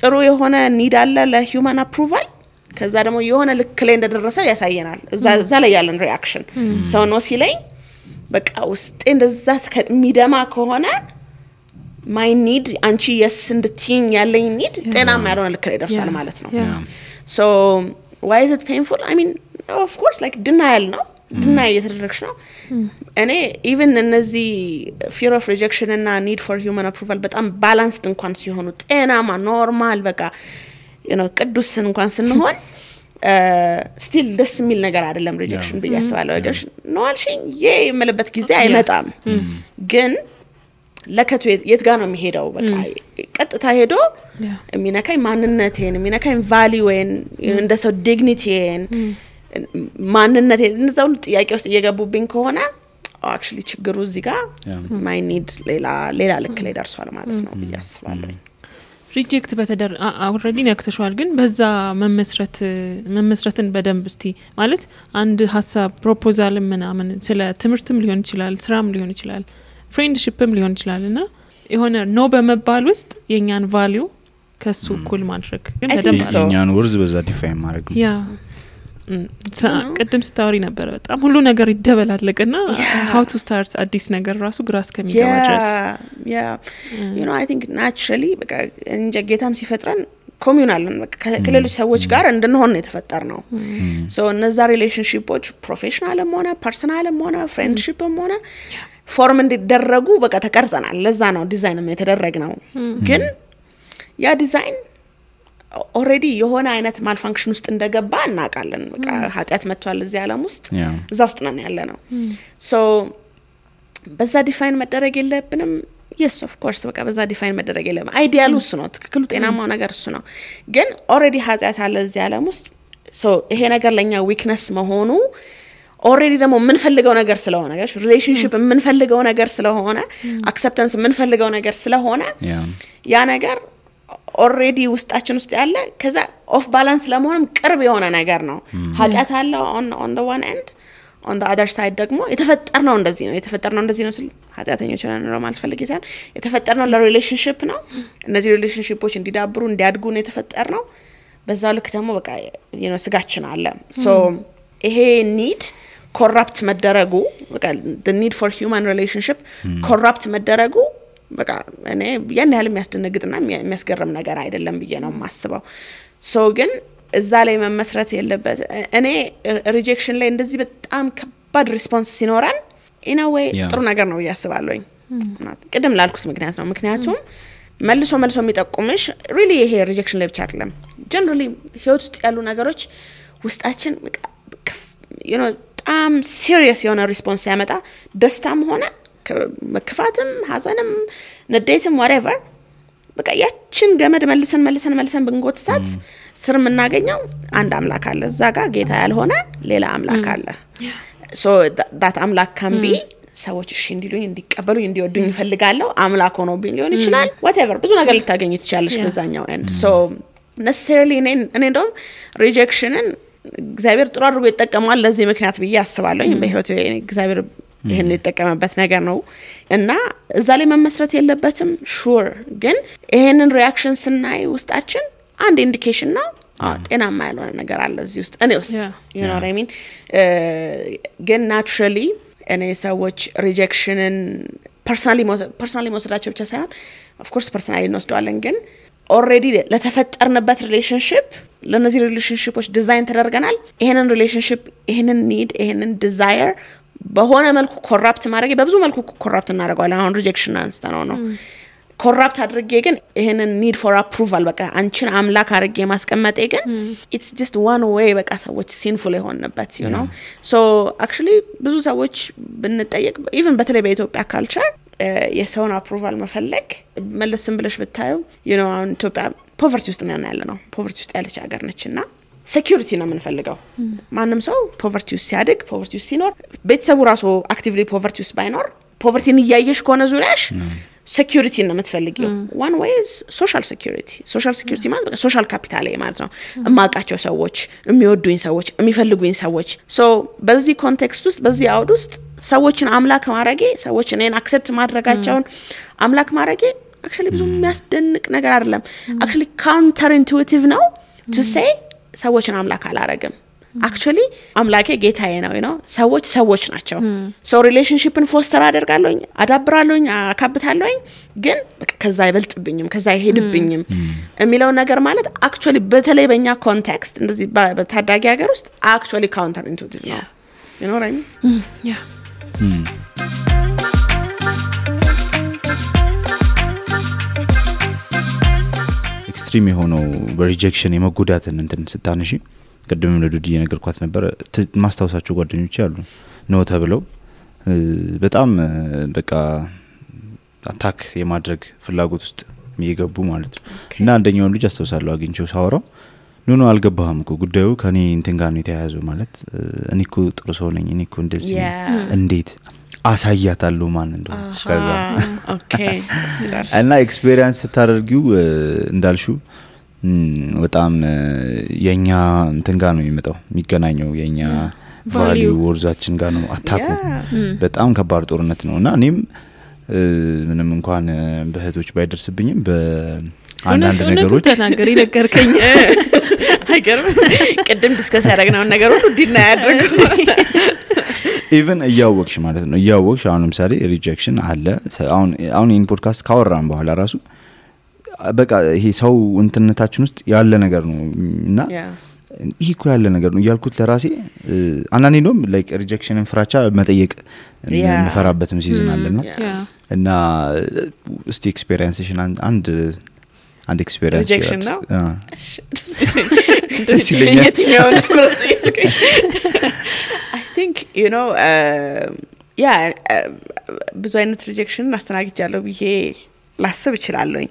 ጥሩ የሆነ need አለ ለhuman approval ከዛ ደግሞ የሆነ ልክ ላይ እንደደረሰ ያሳየናል እዛ ላይ ያለን reaction so no ሲለኝ በቃ ውስጥ እንደዛ ከሚደማ ከሆነ my need አንቺ yes እንድትይኝ ያለኝ need ጤናማ ያልሆነ ልክ ላይ ደርሷል ማለት ነው so why is it painful I mean of course like denial ነው deny እየተደረግሽ ነው እኔ even እነዚህ fear of rejection እና need for human approval በጣም balanced እንኳን ሲሆኑ ጤናማ ኖርማል በቃ you know ቅዱስ እንኳን ስንሆን still ደስ የሚል ነገር አይደለም rejection በያስባለው rejection ነው አልሽኝ የመለበት ጊዜ አይመጣም ግን ለከቱ የት ጋር ነው የሚሄደው በቃ ቀጥታ ሄዶ የሚነካኝ ማንነቴን የሚነካኝ ቫልዩን እንደ ሰው ዲግኒቲን ማንነቴን እንደዛው ጥያቄ ውስጥ እየገቡብኝ ከሆነ actually ችግሩ እዚህ ጋር my need ሌላ ልክ ላይ ደርሷል ማለት ነው በያስባለው ሪጀክት በተደር already ነክተሻል ግን በዛ መመስረትን በደንብ እስቲ ማለት አንድ ሐሳብ ፕሮፖዛል ምናምን ስለ ትምርትም ሊሆን ይችላል ስራም ሊሆን ይችላል ፍሬንድሺፕም ሊሆን ይችላልና የሆነ ኖ በመባል ውስጥ የኛን ቫልዩ ከሱ እኩል ማድረግ ግን በደንብ የኛን ወርዝ በዛ ዲፋይን ማድረግ ያ ቀደም ስታወሪ ነበር በጣም ሁሉ ነገር ይደበላለቀና how to start አዲስ ነገር ራሱ ግራስ ከሚገባ ድረስ you know I think naturally በቃ እንጀ ጌታም ሲፈጥረን ኮሚዩናልን በቃ ከሌሎች ሰዎች ጋር እንድንሆን ነው የተፈጠርነው so እነዛ ሪሌሽንሺፖች ፕሮፌሽናልም ሆነ ፐርሰናልም ሆነ ፍሬንድሺፕም ሆነ ፎርም እንዲደረጉ በቃ ተቀርጸናል ለዛ ነው ዲዛይንም የተደረገው ግን ያ ዲዛይን already የሆነ አይነት ማልፋንክሽን ውስጥ እንደገባ እናቃለን በቃ ኃጢያት መጥቷል እዚህ ዓለም ውስጥ እዛ ውስጥ ነን ያለነው so በዛ ዲፋይን መደረግ የለብንም yes of course በቃ በዛ ዲፋይን መደረግ የለም አይዲያሉ እሱ ነው ትክክሉ ጤናማው ነገር እሱ ነው ግን already ኃጢያት አለ እዚህ ዓለም ውስጥ so ይሄ ነገር ለኛ ዊክነስ መሆኑ already ደግሞ ምን ፈልገው ነገር ስለሆነ ጋሽ ሪሌሽንሺፕ ምን ፈልገው ነገር ስለሆነ አክሰፕታንስ ምን ፈልገው ነገር ስለሆነ ያ ነገር already ውስጣችን ውስጥ ያለ ከዛ ኦፍ ባላንስ ለመሆንም ቅርብ የሆነ ነገር ነው ኃጢያት አለ on the one end on the other side ደግሞ የተፈጠርነው እንደዚህ ነው ስል ኃጢያተኞች ነው ማለት ፈልጌ ሳይሆን የተፈጠርነው ለሪሌሽንሺፕ ነው እነዚህ ሪሌሽንሺፖች እንዲዳብሩ እንዲያድጉ ነው የተፈጠርነው በዛው ልክ ደግሞ በቃ you know ስጋችን አለ so ይሄ need corrupt መደረጉ በቃ the need for human relationship corrupt መደረጉ በቃ እኔ ያን ያህል የሚያስደነግጥና የሚያስገርም ነገር አይደለም ብዬ ነው የማስበው so ግን እዛ ላይ መመስረት የለበት እኔ ሪጀክሽን ላይ እንደዚህ በጣም ከባድ ሪስፖንስ ሲኖራን in a way ጥሩ ነገር ነው ያስባለኝ ቅድም ላልኩት ምክንያት ነው ምክንያቱም መልሶ የሚጠቁምሽ really ይሄ ሪጀክሽን ላይ ብቻ አይደለም generally ህይወት ውስጥ ያሉ ነገሮች ውስጣችን you know በጣም serious የሆነ ሪስፖንስ ያመጣ ደስታም ሆነ መከፋትም ሐዘንም ንዴትም whatever በቃ ያችን ገመድ መልሰን ብንጎትታት ስር የምናገኘው አንድ አምላክ አለ እዛ ጋር ጌታ ያልሆነ ሌላ አምላክ አለ so that አምላክ can be ሰዎች እሺ እንዲሉኝ እንዲቀበሉኝ እንዲወዱኝ ይፈልጋለሁ አምላክ ሆኖ ቢሆን ይችላል whatever ብዙ ነገር ልታገኝ ትችላለሽ በዛኛው end so necessarily እኔ እንደውም ሪጀክሽንን እግዚአብሔር ጥሩ አድርጎ ይጠቀማል ለዚህ ምክንያት ብዬ አስባለሁ በህይወቴ እግዚአብሔር ይሄን የተጠቀመበት ነገር ነው እና እዛ ላይ መመስረት የለበትም ሹር ግን ይሄንን ሪአክሽን ስናይ ውስጣችን አንድ ኢንዲኬሽን ነው ጤናማ ያልሆነ ነገር አለ እዚህ ውስጥ እኔ ውስጥ you know what I mean ግን naturally እኔ ሰዎች ሪጀክሽንን personally መውሰዳቸው ብቻ ሳይሆን of course personally እንወስደዋለን ግን already ለተፈጠርንበት ሪሌሽንሺፕ ለነዚህ ሪሌሽንሺፖች ዲዛይን ተደርገናል ይሄንን ሪሌሽንሺፕ ይሄንን ኒድ ይሄንን ዲዛየር በሆነ መልኩ ኮራፕት ማድረግ በብዙ መልኩ ኮራፕት እናደርጋለን አሁን ሪጀክሽን አንስተነው ነው ኮራፕት አድርጌ ግን ይሄንን ኒድ ፎር አፕሩቫል በቃ አንቺን አምላክ አድርጌ ማስቀመጤ ግን it's just one way በቃ ሰዎች ሲንፉል የሆነበት you know so actually ብዙ ሰዎች ብንጠየቅ even በተለይ በኢትዮጵያ ካልቸር የሰውን አፕሩቫል መፈለግ መለስም ብለሽ ብታዩ you know አሁን ኢትዮጵያ ፖቨርቲ ውስጥ ነው ያለነው ፖቨርቲ ውስጥ ያለች ሀገር ነችና ሴኩሪቲ ነው የምንፈልገው ማንንም ሰው ፖቨርቲ ውስጥ ሲያድግ ፖቨርቲ ውስጥ ሲኖር ቤተሰቡ ራሱ አክቲቭሊ ፖቨርቲ ውስጥ ባይኖር ፖቨርቲን እያየሽ ከሆነ ዙሪያሽ security ነው የምትፈልጊው one way is social security ማለት በቃ social capital ማለት ነው እማቃቸው ሰዎች የሚወዱኝ ሰዎች የሚፈልጉኝ ሰዎች so በዚህ ኮንቴክስት ውስጥ በዚህ አውድ ውስጥ ሰዎችን አምላክ ማድረጌ ሰዎች እኔን አክሰፕት ማድረጋቸውን አምላክ ማድረጌ actually ብዙ የሚያስደንቅ ነገር አይደለም actually counter intuitive ነው to say ሰዎችን አምላክ አላረግም actually አምላኬ ጌታዬ ነው you know ሰዎች ናቸው so relationshipን ፎስተር አደርጋለሁኝ አዳብራለሁኝ አካብታለሁኝ ግን ከዛ አይበልጥብኝም ከዛ አይሄድብኝም የሚለው ነገር ማለት actually በተለይ በእኛ ኮንቴክስት እንደዚህ በታዳጊ ሀገር ውስጥ actually counter intuitive ነው you know what I mean yeah ኤክስትሪም የሆነው በሪጀክሽን የመጎዳትን እንትን ስታነሺ ቀደም ለዱዲ የነገርኳት ነበር ማስተዋወሳቸው ጓደኞች ያሉ ነው ተብለው በጣም በቃ አታክ የማድረግ ፍላጎት ውስጥ የሚገቡ ማለት ነው እና አንደኛው ልጅ አስተውሳለሁ አግኝቼው ሳወራው ኖ አልገባህም እኮ ጉዳዩ ከኔ እንትን ጋር ነው የተያያዘው ማለት እኔ እኮ ጥሩ ሰው ነኝ እኔ እኮ እንደዚህ እንዴት አሳያታለሁ ማን እንደሆነ ከዛ ኦኬ እና ኤክስፒሪየንስ ታደርጊው እንዳልሽው በጣም የኛ እንትን ጋር ነው የሚመጣው የሚገናኘው የኛ ቫልዩ ወርዛችን ጋር ነው አታኩ በጣም ከባድ ጦርነት ነውና እኔም ምንም እንኳን በህቶች ባይደርስብኝም በአንዳንድ ነገሮች ተናገሪ ነገርከኝ አይገርም ቀደም ዲስከስ ያደረግነው ነገር ሁሉ ዲና ያደርጉ even እያወቅሽ ማለት ነው እያወቅሽ አሁን ለምሳሌ ሪጀክሽን አለ አሁን ኢን ፖድካስት ካወራን በኋላ ራሱ በቃ ይሄ ሰው እንትነታችን ውስጥ ያለ ነገር ነው እና ይሄ እኮ ያለ ነገር ነው ያልኩት ለራሴ አንዳንዴ ነው ላይክ ሪጀክሽንን ፍራቻ መጠየቅ የምፈራበትም ሲዝን አለና እና እስቲ ኤክስፒሪየንስሽን አንድ ኤክስፒሪየንስ ሪጀክሽን ነው ደስ ይለኛል I think you know ብዙ አይነት ሪጀክሽን አስተናግጃለሁ ብዬ ላስብ እችላለሁ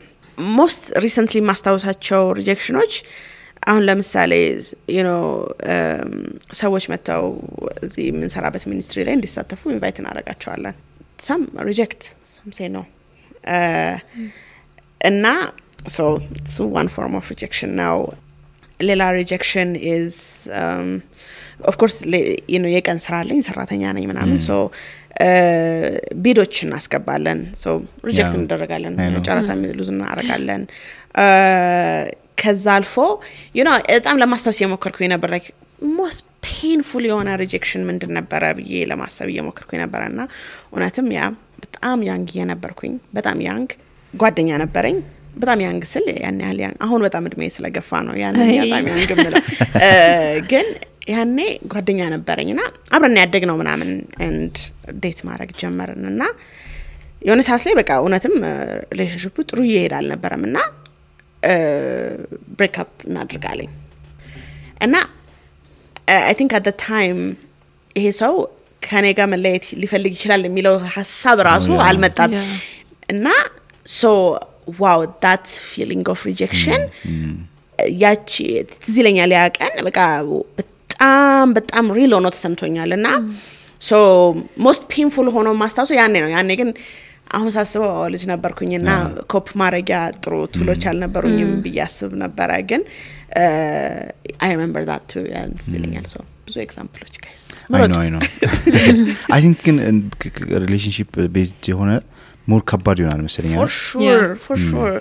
most recently ማስታወሳቸው ሪጀክሽኖች አሁን ለምሳሌ you know ሰዎች መተው እዚህ የምንሰራበት ሚኒስትሪ ላይ እንዲሳተፉ ኢንቫይት እናደርጋቸዋለን some reject some say no እና so it's one form of rejection now ሌላ rejection is of course you know የቀን ስራ አለኝ ሰራተኛ ነኝ ምናምን so ቢዶች እናስገባለን so ሪጀክት እንደረጋለን ጨረታ ሉዝ እናረጋለን ከዛ አልፎ you know በጣም ለማስተዋወስ የሞከርኩኝ ነበር like most painful የሆነ rejection ምንድን ነበር ብዬ ለማሰብ የሞከርኩኝ ነበርና እውነትም ያ በጣም ያንግ የነበርኩኝ በጣም ያንግ ጓደኛ ነበረኝ በጣም ያንግ ስል ያን ያህል አሁን በጣም እድሜ ስለገፋ ነው ያን በጣም ያንግ ምለው ግን ያኔ ጓደኛ ነበረኝና አብረን ያደግነው ምናምን and ዴት ማድረግ ጀመርንና የሆነ ሰዓት ላይ በቃ እውነትም ሪሌሽንሺፑ ጥሩ ይሄዳል ነበርምና break up እናድርጋለኝ እና I think at the time ይሄ ሰው ከኔ ጋር መለየት ሊፈልግ ይችላል የሚለው ሐሳብ ራሱ አልመጣም እና so wow that feeling of rejection ያቺ ትዝለኛል ያቀን በቃ በጣም ሪል ሆኖ ተሰምቶኛልና so most painful ሆኖ ማስታወስ ያኔ ግን አሁን ሳስበው ልጅ ነበርኩኝና ኮፕ ማረጊያ ጥሩ ቱሎች አልነበሩኝም ብያስብ ነበር ግን I remember that too and ትዝለኛል so ብዙ ኤግዛምፕሎች guys I know I think relationship based የሆነ more ከባድ ይሆናል መሰለኝ for sure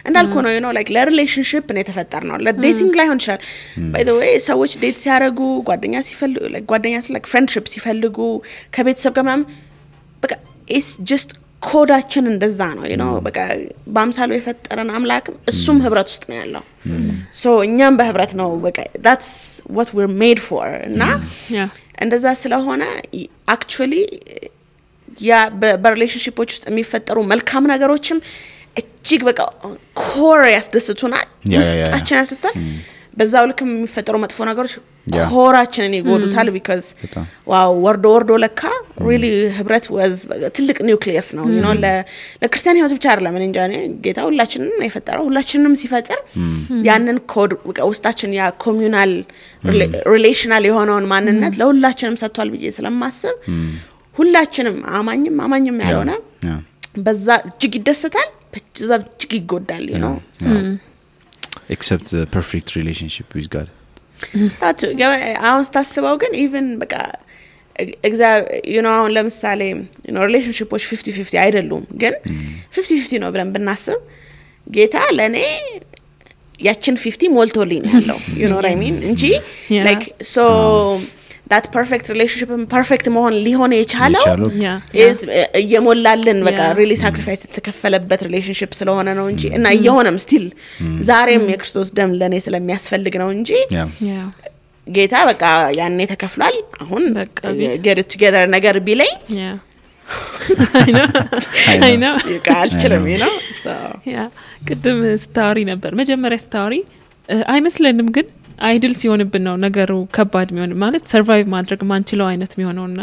እንዳልኩ ነው you know like relationship ነው የተፈጠርነው ለዴቲንግ ላይ ሆን ይችላል by the way ሰዎች ዴት ሲያረጉ ጓደኛ ሲፈልጉ ጓደኛ like friendship ሲፈልጉ ከቤተሰብ ጋር ምናምን በቃ it's just ኮዳችን እንደዛ ነው you know በቃ በአምሳሉ የፈጠረን አምላክ እሱም ህብረት ውስጥ ነው ያለው so እኛም በህብረት ነው በቃ that's what we're made for እና እንደዛ ስለሆነ actually ያ በሪሌሽንሺፖች ውስጥ የሚፈጠሩ መልካም ነገሮችም እጅግ በቃ ኮር ያስደስቱናል ውስጣችን ያስደስታል በዛው ልክ የሚፈጠሩ መጥፎ ነገሮች ኮራችንን ይጎዱታል because ዋው ወርዶ ለካ really ህብረት was ትልቅ ኒውክሊየስ ነው you know ለክርስቲያን ህይወት ብቻ አይደለም እንጂ ጌታ ሁላችንንም የፈጠረው ሁላችንንም ሲፈጥር ያንን ኮድ ውስጣችን ያ ኮሚዩናል ሪሌሽናል የሆነውን ማንነት ለሁላችንም ሰጥቷል ብዬ ስለማስብ ሁላችንም አማኝም ያልሆነ በዛ እጅግ ይደሰታል በዛ እጅግ ይጎዳል you know so except the perfect relationship with God that አሁን ስታስበው ግን even በቃ you know አሁን ለምሳሌ you know relationships 50-50 አይደሉም ግን 50-50 ነው ብለን ብናስብ ጌታ ለኔ ያችን 50 ሞልቶልኝ ያለው you know what I mean እንጂ like so that perfect relationship perfect መሆን ሊሆን የቻለው is የሞላልን በቃ really sacrifice ተከፈለበት relationship ስለሆነ ነው እንጂ እና የሆነም still ዛሬም የክርስቶስ ደም ለኔ ስለሚያስፈልግ ነው እንጂ ጌታ በቃ ያኔ ተከፍሏል አሁን get it together ነገር ቢለኝ I know ይቃልችልም you know so ቅድም ስታወሪ ነበር መጀመሪያ ስታወሪ አይመስለንም ግን አይድል ሲሆንብን ነው ነገሩ ከባድ የሚሆን ማለት ሰርቫይቭ ማድረግ ማንችለው አይነት የሚሆነውና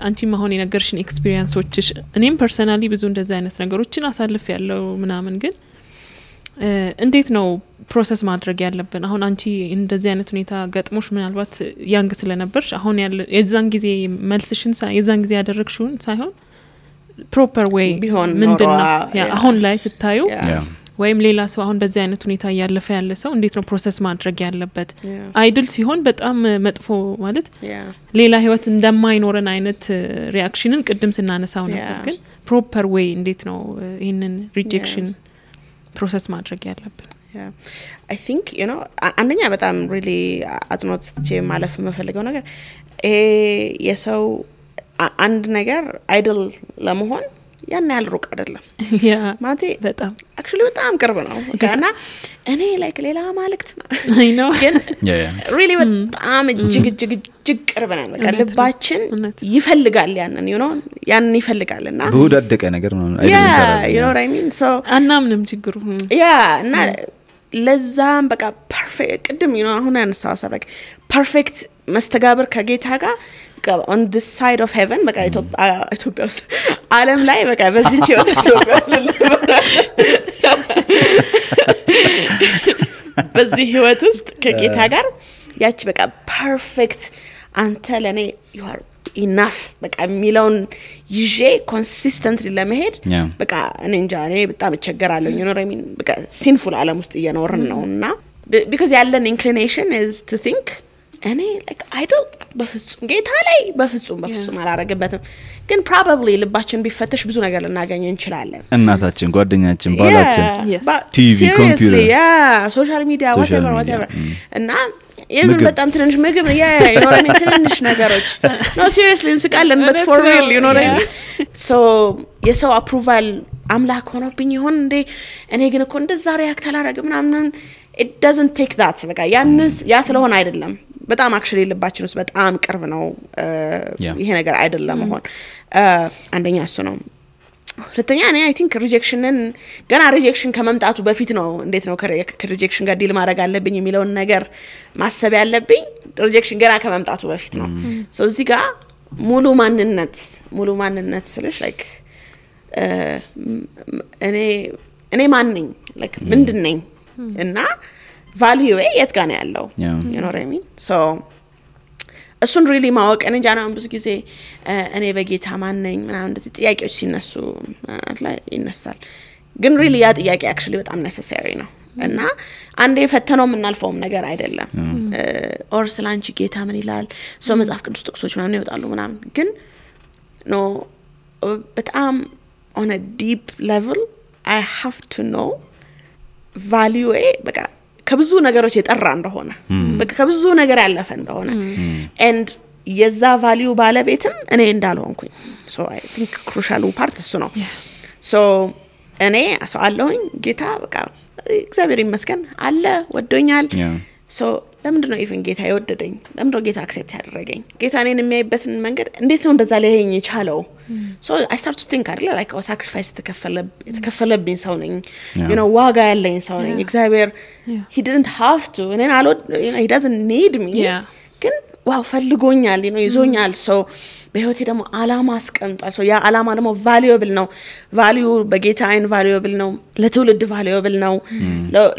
አንቺ ማሆን የነገርሽን ኤክስፒሪየንሶችሽ እኔም ፐርሰናሊ ብዙ እንደዚህ አይነት ነገሮችን አሳልፍ ያለው ምናምን ግን እንዴት ነው ፕሮሰስ ማድረግ ያለብን አሁን አንቺ እንደዚህ አይነት ሁኔታ ገጥሞሽ ምናልባት ያንግ ስለነበርሽ አሁን ያለ የዛን ጊዜ መልስሽን የዛን ጊዜ ያደረግሽውን ሳይሆን ፕሮፐር ዌይ ምንድነው አሁን ላይ ስታዩ ወይም ሌላ ሰው አሁን በዚህ አይነት ሁኔታ ያለፈ ያለ ሰው እንዴት ነው ፕሮሰስ ማድረግ ያለበት አይድል ሲሆን በጣም መጥፎ ማለት ሌላ ህይወት እንደማይኖረን አይነት ሪአክሽንን ቅድም ስናነሳው ነበር ግን ፕሮፐር ዌይ እንዴት ነው ይሄንን ሪጀክሽን ፕሮሰስ ማድረግ ያለብን I think you know አንደኛ በጣም really አጽንኦት ሰጥቼ ማለፍ የምፈልገው ነገር የሰው አንድ ነገር አይድል ለመሆን ያን ያህል ሩቅ አይደለም ማለቴ በጣም actually በጣም ቅርብ ነው እና እኔ like ሌላ ማለክት ነው I know ግን really በጣም እጅግ ቅርብ ነው በቃ ልባችን ይፈልጋል ያንን you know ያንን ይፈልጋልና በወዳደቀ ነገር ነው አይደለም you know what I mean so አናምንም ችግሩ እና ለዛም በቃ ፐርፌክት ቅድም you know አሁን ያነሳው ሰበክ ፐርፌክት መስተጋብር ከጌታ ጋር on this side of heaven በቃ ኢትዮጵያ ውስጥ ዓለም ላይ በቃ በዚህ ቺዮት ኢትዮጵያ በዚህ ህይወት ውስጥ ከጌታ ጋር ያቺ በቃ ፐርፌክት አንተ ለኔ you are enough በቃ ሚለውን ይዤ ኮንሲስተንትሊ ለመሄድ በቃ እኔ እንጃ እኔ በጣም እቸገራለሁ you know what I mean በቃ ሲንፉል ዓለም ውስጥ እየኖርን ነውና because ያለን inclination is to think እኔ like idol በፍጹም ጌታ ላይ በፍጹም አላረገበትም ግን probably ልባችን ቢፈተሽ ብዙ ነገር ልናገኝ እንችላለን እናታችን ጓደኛችን ባላችን ቲቪ ኮምፒውተር ሶሻል ሚዲያ whatever እና even በጣም ትንሽ ምግብ you know what I mean ትንሽ ነገሮች no seriously እንስቃለን but for real you know what I mean so የሰው approval አምላክ ሆኖብኝ ይሆን እንዴ እኔ ግን እኮ እንደዛ ሪያክት አላረግም ምናምን it doesn't take that በቃ ያ ስለሆነ አይደለም በጣም አክቹሊ ልባችን ውስጥ በጣም ቅርብ ነው ይሄ ነገር አይደለም ሆን አንደኛ እሱ ነው ሁለተኛ እኔ አይ ቲንክ ሪጀክሽንን ገና ሪጀክሽን ከመምጣቱ በፊት ነው እንዴት ነው ከሪጀክሽን ጋር ዲል ማድረግ አለብኝ የሚለውን ነገር ማሰብ ያለብኝ ሪጀክሽን ገና ከመምጣቱ በፊት ነው ሶ እዚህ ጋር ሙሉ ማንነት ስለሽ ላይክ እኔ ማን ነኝ ላይክ ምንድን ነኝ እና ቫልዩዌ የት ጋር ነው ያለው you know what I mean so እሱን really ማወቅ እኔ ጃናው ብዙ ጊዜ እኔ በጌታ ማን ነኝ ምናምን እንደዚህ ጥያቄዎች ሲነሱ ላይ ይነሳል ግን really ያ ጥያቄ actually በጣም necessary ነው እና አንዴ ፈተነው የምናልፈውም ነገር አይደለም ኦር ስላንቺ ጌታ ምን ይላል ሶ መጽሐፍ ቅዱስ ጥቅሶች ምናምን ይወጣሉ ምናምን ግን ኖ በጣም on a deep level I have to know value በቃ ከብዙ ነገሮች የጠራ እንደሆነ በቃ ከብዙ ነገር ያለፈ እንደሆነ and የዛ value ባለቤትም እኔ እንዳልሆንኩኝ so I think crucial part እሱ ነው so እኔ አሰዋለሁኝ ጌታ በቃ እግዚአብሔር ይመስገን አለ ወዶኛል so ለምንድነው ኢቭን ጌታ ይወደደኝ ለምንድነው ጌታ አክሴፕት ያደረገኝ ጌታ እኔን የሚያይበትን መንገድ እንዴት ነው እንደዛ ሊያየኝ የቻለው so I start to think አይደል like a sacrifice የተከፈለብኝ ሰው ነኝ you know ዋጋ ያለኝ ሰው ነኝ እግዚአብሔር he didn't have to and you know he doesn't need me ግን ዋው ፈልጎኛል you know ይዞኛል so በህይወቴ ደግሞ አላማ አስቀምጧል so ያ አላማ ደግሞ valuable ነው value በጌታ አይን valuable ነው ለትውልድ valuable ነው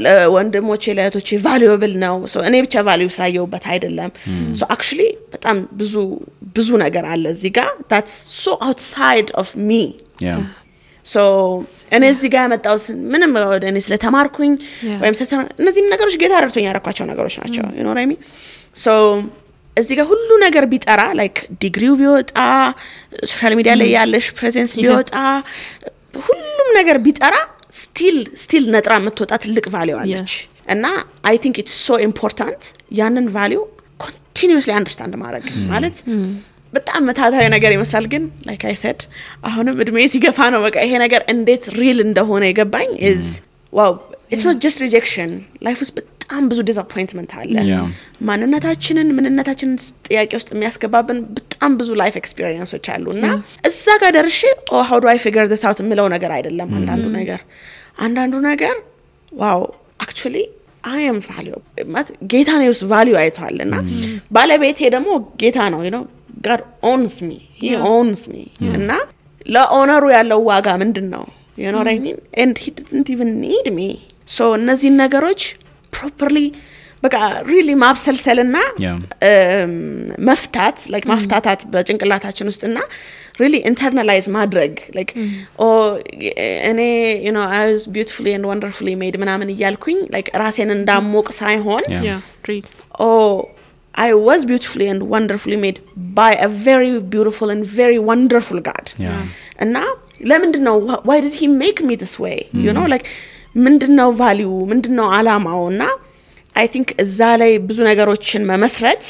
ለወንድሞቼ ለእህቶቼ valuable ነው so እኔ ብቻ value ሳየውበት አይደለም so actually በጣም ብዙ ነገር አለ እዚህ ጋር that's so outside of me so እኔ እዚህ ጋር ያመጣው ምንም እኔ ስለተማርኩኝ ወይም እነዚህ ነገሮች ጌታ ረድቶኝ ያረኳቸው ነገሮች ናቸው you know what I mean so እዚህ ጋር ሁሉ ነገር ቢጠራ like ዲግሪው ቢወጣ ሶሻል ሚዲያ ላይ ያለሽ ፕሬዘንስ ቢወጣ ሁሉም ነገር ቢጠራ still ነጥራ የምትወጣ ትልቅ ቫልዩ አለች እና I think it's so important ያንን ቫልዩ continuously understand ማድረግ ማለት በጣም መታታዊ ነገር ይመስላል ግን like I said አሁንም እድሜ ሲገፋ ነው በቃ ይሄ ነገር እንዴት ሪል እንደሆነ የገባኝ is wow it's not just rejection life is በጣም ብዙ disappointment አለ ማንነታችንን ጥያቄ ውስጥ የሚያስገባብን በጣም ብዙ life experiences አሉና እዛ ጋር ደርሼ how do I figure this out ምለው ነገር አይደለም አንዳንዱ ነገር wow actually I am valuable ማለት ጌታ ነው value አይቷልና ባለቤቴ ደግሞ ጌታ ነው you know God owns me he owns me እና ለኦነሩ ያለው ዋጋ ምንድነው you know what I mean and he didn't even need me so እነዚህ ነገሮች properly በቃ really ማብሰልሰልና መፍታት like ማፍታታት በጭንቅላታችን ውስጥና really internalize ማድረግ like እኔ you know I was beautifully and wonderfully made ምናምን እያልኩኝ like ራሴን እንዳሞቅ ሳይሆን I was beautifully and wonderfully made by a very beautiful and very wonderful God እና ለምንድነው why did he make me this way you know like ምንድነው value ምንድነው አላማውና I think እዛ ላይ ብዙ ነገሮችን መመስረት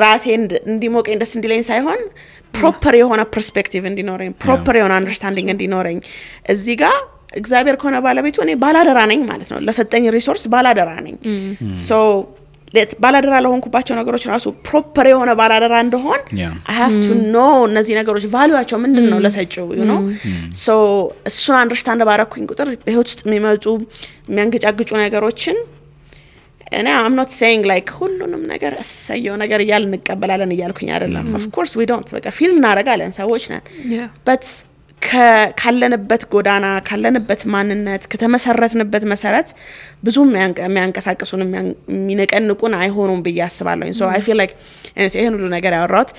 ራሴን እንዲሞቀኝ ደስ እንዲለኝ ሳይሆን proper የሆነ perspective እንዲኖረኝ proper የሆነ understanding እንዲኖረኝ እዚህ ጋር እግዚአብሔር ከሆነ ባለቤቱ እኔ ባላደራ ነኝ ማለት ነው ለሰጠኝ ሪሶርስ ባላደራ ነኝ so ባላደራ ለሆንኩባቸው ነገሮች ራሱ proper የሆነ ባላደራ እንደሆን I have to know እነዚህ ነገሮች ቫልዩአቸው ምንድነው ለሰጪው you know so እሱን አንደርስታንድ ባረኩኝ ቁጥር በህይወት ውስጥ የሚመጡ የሚያንገጫግጩ ነገሮችን እኔ I'm not saying like ሁሉንም ነገር እሰየው ነገር እያልን እንቀበላለን እያልኩኝ አይደለም of course we don't በቃ ፊል እናረጋለን ሰዎች ነን but ካለንበት ጎዳና ካለንበት ማንነት ከተመሰረትንበት መሰረት ብዙ የሚያንቀሳቅሱን የሚነቀንቁን አይሆኑም ብዬ አስባለሁ so I feel like ይሄን ሁሉ ነገር ያወራሁት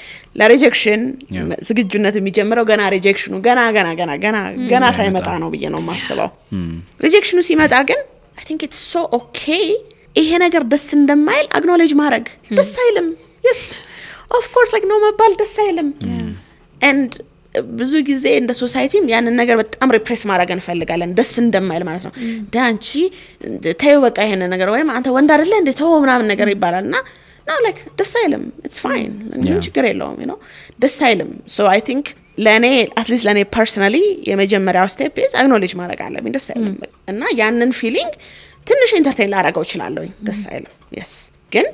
ለሪጀክሽን ዝግጁነት የሚጀምረው ገና ሪጀክሽኑ ገና ሳይመጣ ነው ብዬ ነው የማስበው ሪጀክሽኑ ሲመጣ ግን I think it's so okay ይሄ ነገር ደስ እንደማይል acknowledge ማድረግ ደስ አይልም yes of course like no መባል ደስ አይልም and ብዙ ጊዜ እንደ ሶሳይቲም ያንን ነገር በጣም ሪፕሬስ ማድረግ እንፈልጋለን ደስ እንደማይል ማለት ነው ዳንቺ ተይው በቃ ይሄን ነገር ወይም አንተ ወንድ አይደለ እንዴ ተው ምናምን ነገር ይባላልና no like ደስ አይልም it's fine ምን ችግር የለውም you know ደስ አይልም so I think ለኔ አትሊስት ለኔ ፐርሰናሊ የመጀመሪያው ስቴፕ ኢዝ አክኖሌጅ ማድረግ አለብኝ ደስ አይልም እና ያንን ፊሊንግ ትንሽ ኢንተርቴይን ላደርገው እችላለሁ ደስ አይልም yes ግን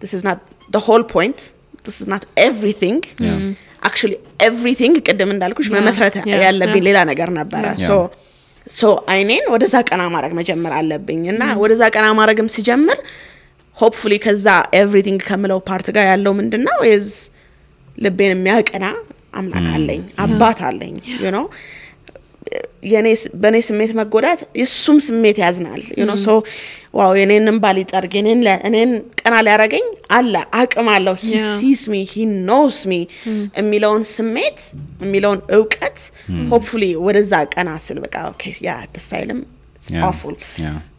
this is not the whole point this is not everything actually everything ቅድም እንዳልኩሽ መመስረት ያለብኝ ሌላ ነገር ነበር so አይኔን ወደዛ ቀና ማድረግ መጀመር አለብኝ እና ወደዛ ቀና ማድረግም ሲጀምር hopefully ከዛ everything ከምለው ፓርት ጋር ያለው ምንድነው is ልቤን የሚያቀና አምላክ አለኝ አባት አለኝ you know በኔ ስሜት መጎዳት የሱም ስሜት ያዝናል you know so ዋው የኔንም ባሊ ጠርግ እኔን ቀና ሊያረገኝ አለ አቅም አለው he sees me he knows me የሚለውን ስሜት የሚለውን ዕውቀት hopefully ወደዛ ቀና ስል በቃ okay yeah this silence it's awful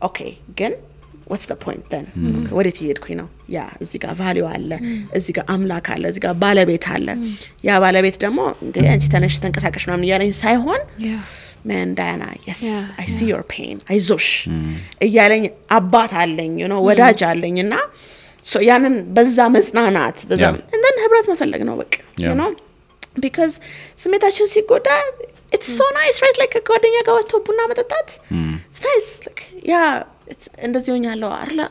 okay ግን what's the point then okay what did you do ነው ያ እዚህ ጋር ቫልዩ አለ እዚህ ጋር አምላክ አለ እዚህ ጋር ባለቤት አለ ያ ባለቤት ደግሞ እንዴ አንቺ ተነሽ ተንቀሳቀሽ ምናምን ያለኝ ሳይሆን man Diana yes I see your pain አይዞሽ እያለኝ አባት አለኝ you know ወዳጅ አለኝና so ያንን በዛ መጽናናት በዛ and then ህብረት መፈለግ ነው በቃ you know because ስሜታችን ሲጎዳ it's so nice right like ጓደኛ ጋር ወጥቶ ቡና መጠጣት it's nice like yeah it's እንደዚህ ሆኛለሁ አይደል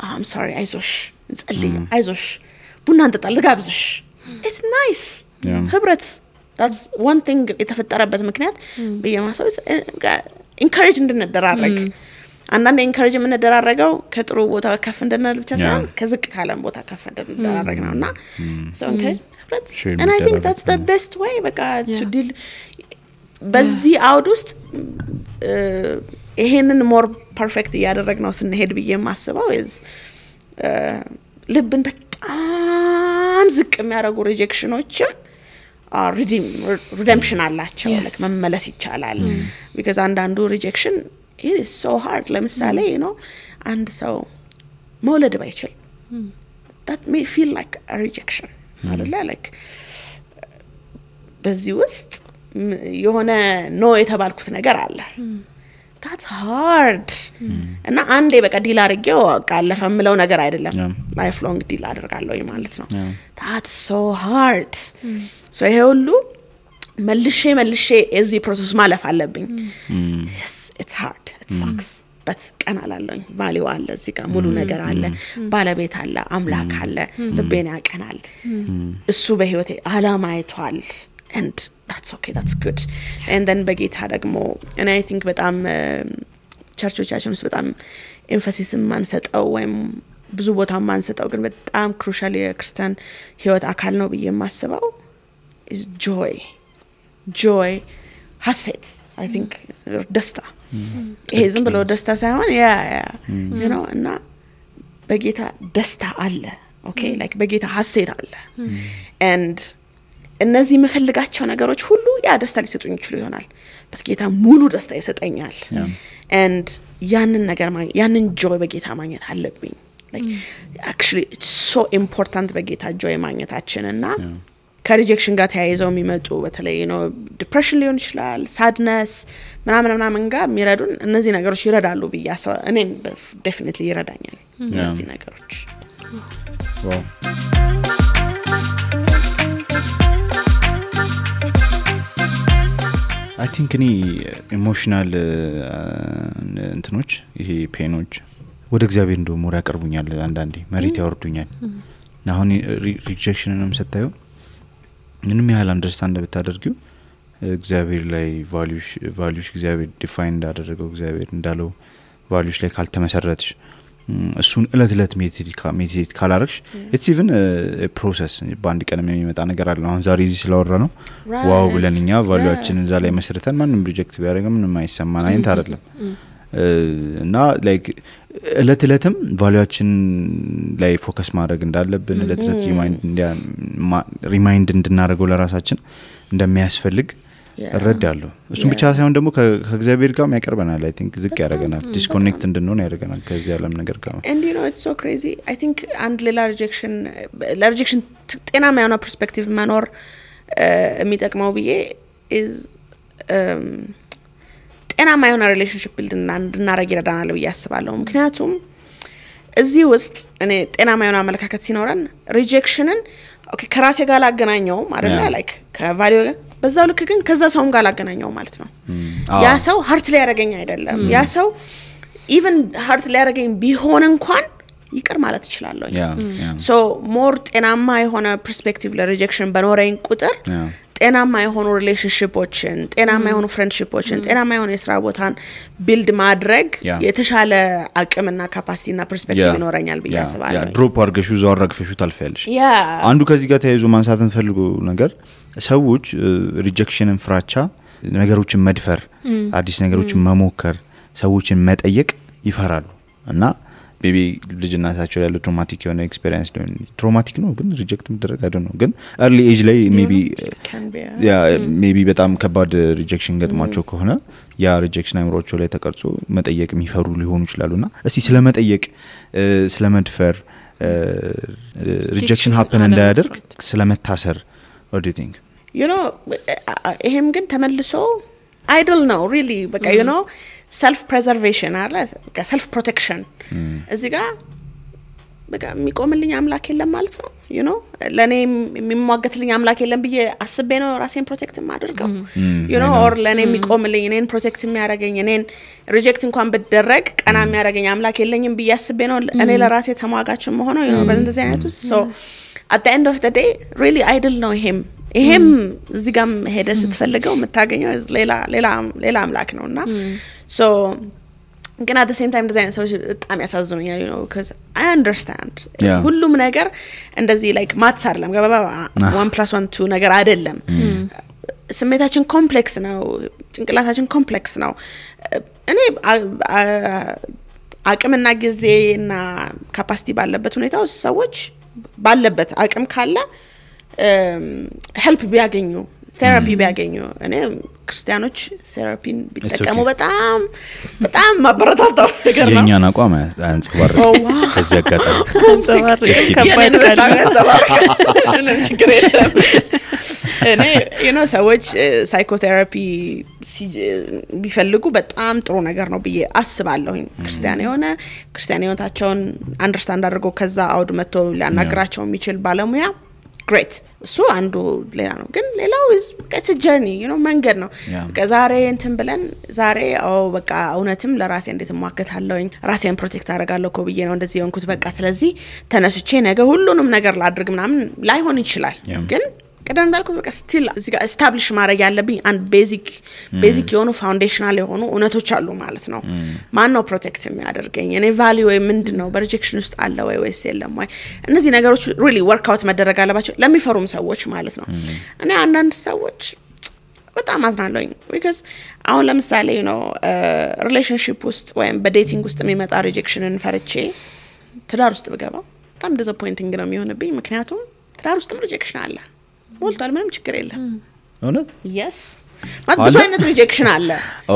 I'm sorry አይዞሽ እንጸልይ አይዞሽ ቡና እንጠጣ ልጋብዝሽ it's nice ህብረት that's one thing የተፈጠረበት ምክንያት በየማሰው encourage እንድንደራረግ አንዳንዴ encourage የምንደራረገው ከጥሩ ቦታ ከፍ እንድንል ብቻ ሳይሆን ከዝቅ ካለም ቦታ ከፍ እንድንደራረግ ነውና so encourage ህብረት and I think that's the best way በቃ to deal በዚህ አውድ ውስጥ ይሄንን more perfect ያደረግነው ስንሄድ ብዬ ማስበው is ልብን በጣም ዝቅ የሚያደርጉ ሪጀክሽኖችም redemption አላቸው like መመለስ ይቻላል because አንዳንዱ rejection it is so hard ለምሳሌ you know አንድ ሰው መውለድ ባይችል that may feel like a rejection አይደለ like በዚህ ውስጥ የሆነ ኖ የተባልኩት ነገር አለ that's hard እና አንዴ በቃ ዲል አድርጌው አለፈ ምለው ነገር አይደለም life long ዲል አደርጋለሁ ማለት ነው that's so hard so ይሄ ሁሉ መልሼ እዚህ ፕሮሰስ ማለፍ አለብኝ yes it's hard it sucks but ቀና አላለኝ ቫልዩ አለ እዚህ ጋር ሙሉ ነገር አለ ባለቤት አለ አምላክ አለ ልቤን ያቀናል እሱ በህይወቴ አላማ አይቷል and that's okay that's good and then በጌታ ደግሞ and I think በጣም ቸርቾቻችን ውስጥ በጣም ኤምፋሲስ ማንሰጠው ወይም ብዙ ቦታ ማንሰጠው ግን በጣም ክሩሻል የክርስቲያን ህይወት አካል ነው ብዬ ማስበው is joy ሐሴት I think ደስታ ይሄ ዝም ብሎ ደስታ ሳይሆን you know እና በጌታ ደስታ አለ okay like በጌታ ሐሴት አለ and እነዚህ መፈልጋቸው ነገሮች ሁሉ ያ ደስታ ሊሰጡኝ ይችላል ይሆናል በጌታ ሙሉ ደስታ ይሰጠኛል and ያንን ነገር ያንን joy በጌታ ማግኘት አለብኝ like actually it's so important በጌታ joy ማግኘታችን እና ከሪጀክሽን ጋር ተያይዘው የሚመጡ በተለይ ነው ዲፕሬሽን ሊሆን ይችላል sadness ምናምን ጋር የሚረዱን እነዚህ ነገሮች ይረዳሉ ብያስ እኔን definitely ይረዳኛል እነዚህ ነገሮች wow I think any emotional እንትኖች ይሄ ፔኖች ወደ እግዚአብሔር እንደው ሞራ ያቀርቡኛል አንዳንዴ መሬት ያወርዱኛል አሁን ሪጀክሽንንም ሰጣዩ ምንም ያህል አንደርስታንድ ብታደርጊው እግዚአብሔር ላይ ቫልዩሽ እግዚአብሔር ዲፋይን እንዳደረገው እግዚአብሔር እንዳለው ቫልዩሽ ላይ ካልተመሰረትሽ እሱን እለት ሜዲቴት ካላረክሽ it's even a process በአንድ ቀን የሚመጣ ነገር አለ አሁን ዛሬ እዚህ ስለወራ ነው ዋው ብለንኛ ቫልዩአችንን እዛ ላይ መስርተን ማንንም ሪጀክት ቢያደርግ ምንም አይሰማን አይንት አይደለም እና like እለትም ቫልዩአችን ላይ ፎከስ ማድረግ እንዳለብን እለት ሪማይንድ እንድናደርገው ለራሳችን እንደሚያስፈልግ እረዳለሁ እሱም ብቻ ሳይሆን ደግሞ ከእግዚአብሔር ጋር ያቀርበናል I think ዝቅ ያደርገናል ዲስኮኔክት እንድንሆን ያደርገናል ከዚህ ዓለም ነገር ጋር and you know it's so crazy I think and rejection ጤናማ የሆነ ፐርስፔክቲቭ መኖር የሚጠቅመው ብዬ is ጤናማ የሆነ ሪሌሽንሺፕ ቢልድ እንድናደርግ ይረዳናል ብዬ አስባለሁ ምክንያቱም እዚህ ውስጥ እኔ ጤናማ የሆነ አመለካከት ሲኖረን ሪጀክሽንን ኦኬ ከራሴ ጋር ላገናኘው አይደለ ላይክ ከቫልዩ በዛው ልክ ግን ከዛ ሰውም ጋር ላገናኘው ማለት ነው ያ ሰው ሃርት ላይ ያረጋኝ አይደለም ያ ሰው ኢቭን ሃርት ላይ ያረጋኝ ቢሆን እንኳን ይቅር ማለት ይችላልኝ ሶ ሞር ጤናማ የሆነ ፐርስፔክቲቭ ለሪጀክሽን በኖረኝ ቁጥር ጤናማ የሆኑ ሪሌሽንሺፖችን ጤናማ የሆኑ ፍሬንድሺፖችን ጤናማ የሆኑ የሥራ ቦታን ቢልድ ማድረግ የተሻለ አቅምና ካፓሲቲና ፐርስፔክቲቭ ይኖረኛል ብዬ አስባለሁ ድሮፕ አርገሹ ዛወራግፈሹ ታልፈያለሽ አንዱ ከዚህ ጋር ተያይዞ ማንሳትን ፈልጎ ነገር ሰዎች ሪጀክሽንን ፍራቻ ነገሮችን መድፈር አዲስ ነገሮችን መሞከር ሰዎችን መጠየቅ ይፈራሉ እና maybe ልጅናታቸው ያለው ትራውማቲክ የሆነ ኤክስፒሪየንስ ነው ትራውማቲክ ነው ግን ሪጀክት መደረግ አይደል ነው ግን early age ላይ maybe በጣም ከባድ ሪጀክሽን ገጥሟቸው ከሆነ ያ ሪጀክሽን አይምሮቸው ላይ ተቀርጾ መጠየቅ የሚፈሩ ሊሆኑ ይችላሉና እስቲ ስለመጠየቅ ስለመድፈር ሪጀክሽን happen እንዳያደርግ ስለመታሰር what do you think you know ይሄም ግን ተመልሶ idle ነው really በቃ you know self preservation አለ በቃ self protection እዚህ ጋር በቃ የሚቆምልኝ አምላክ የለም ማለት ነው you know ለኔ የሚሟገትልኝ አምላክ የለም ብዬ አስቤ ነው ራሴን ፕሮቴክት ማድረገው you know or ለኔ የሚቆምልኝ እኔን ፕሮቴክት የሚያደርገኝ እኔን ሪጀክት እንኳን ብደረግ ቀና የሚያደርገኝ አምላክ የለኝም ብዬ አስቤ ነው እኔ ለራሴ ተሟጋች መሆን ነው you know በእንደዚህ አይነቱ so at the end of the day really idle ነው ይሄም እዚህ ጋር ሄደ ስትፈልገው የምታገኘው ሌላ አምላክ ነውና so ግን at the same time design so በጣም ያሳዝኑኛል you know because I understand ሁሉም ነገር እንደዚህ like ማትስ አይደለም ገባባ 1+1 ነገር አይደለም ስሜታችን ኮምፕሌክስ ነው ጭንቅላታችን ኮምፕሌክስ ነው እኔ አቅምና ጊዜና ካፓሲቲ ባለበት ሁኔታ ሰዎች ባለበት አቅም ካለ help ቢያገኙ ቴራፒ ቢያገኙ እኔ ክርስቲያኖች ቴራፒን ቢጠቀሙ በጣም ማበረታታው ነገር ነው የኛን አቋም አንጸባርቅ ከዚህ አጋጣሚ አንጸባርቅ ከባድ ካለ ችግር የለም እኔ you know ሰዎች ሳይኮቴራፒ ቢፈልጉ በጣም ጥሩ ነገር ነው ብዬ አስባለሁ ክርስቲያን ህይወታቸውን አንደርስታንድ አድርገው ከዛ አውድ መጥቶ ሊያናግራቸው የሚችል ባለሙያ great እሱ አንዱ ሌላ ነው ግን ሌላው is it's a journey you know መንገድ ነው ከዛሬ እንትን ብለን ዛሬ በቃ እውነትም ለራሴ እንዴት ማከታለውኝ ራሴን ፕሮቴክት አደርጋለሁ ኮብዬ ነው እንደዚህ የሆንኩት በቃ ስለዚህ ተነስቼ ነገ ሁሉንም ነገር ላድርግ ምናምን ላይሆን ይችላል ግን ቀደም እንዳልኩት በቃ ስቲል እዚህ ጋር ኤስታብሊሽ ማድረግ ያለብኝ አንድ ቤዚክ የሆኑ ፋውንዴሽናል የሆኑ እውነቶች አሉ ማለት ነው ማን ነው ፕሮቴክት የሚያደርገኝ እኔ ቫልዩ ወይ ምንድነው በሪጀክሽን ውስጥ አለ ወይስ የለም ወይ እነዚህ ነገሮች ሪሊ ወርክ አውት መደረግ አለባቸው ለሚፈሩም ሰዎች ማለት ነው እኔ አንዳንድ ሰዎች በጣም አዝናለሁኝ because አሁን ለምሳሌ ነው ሪሌሽንሺፕ ውስጥ ወይም በዴቲንግ ውስጥ የሚመጣ ሪጀክሽንን ፈርቼ ትዳር ውስጥ ብገባ በጣም ዲስአፖይንቲንግ ነው የሚሆንብኝ ምክንያቱም ትዳር ውስጥም ሪጀክሽን አለ ሞልቷል ምንም ችግር የለም እውነት yes ማለት ብዙ አይነት ሪጀክሽን አለ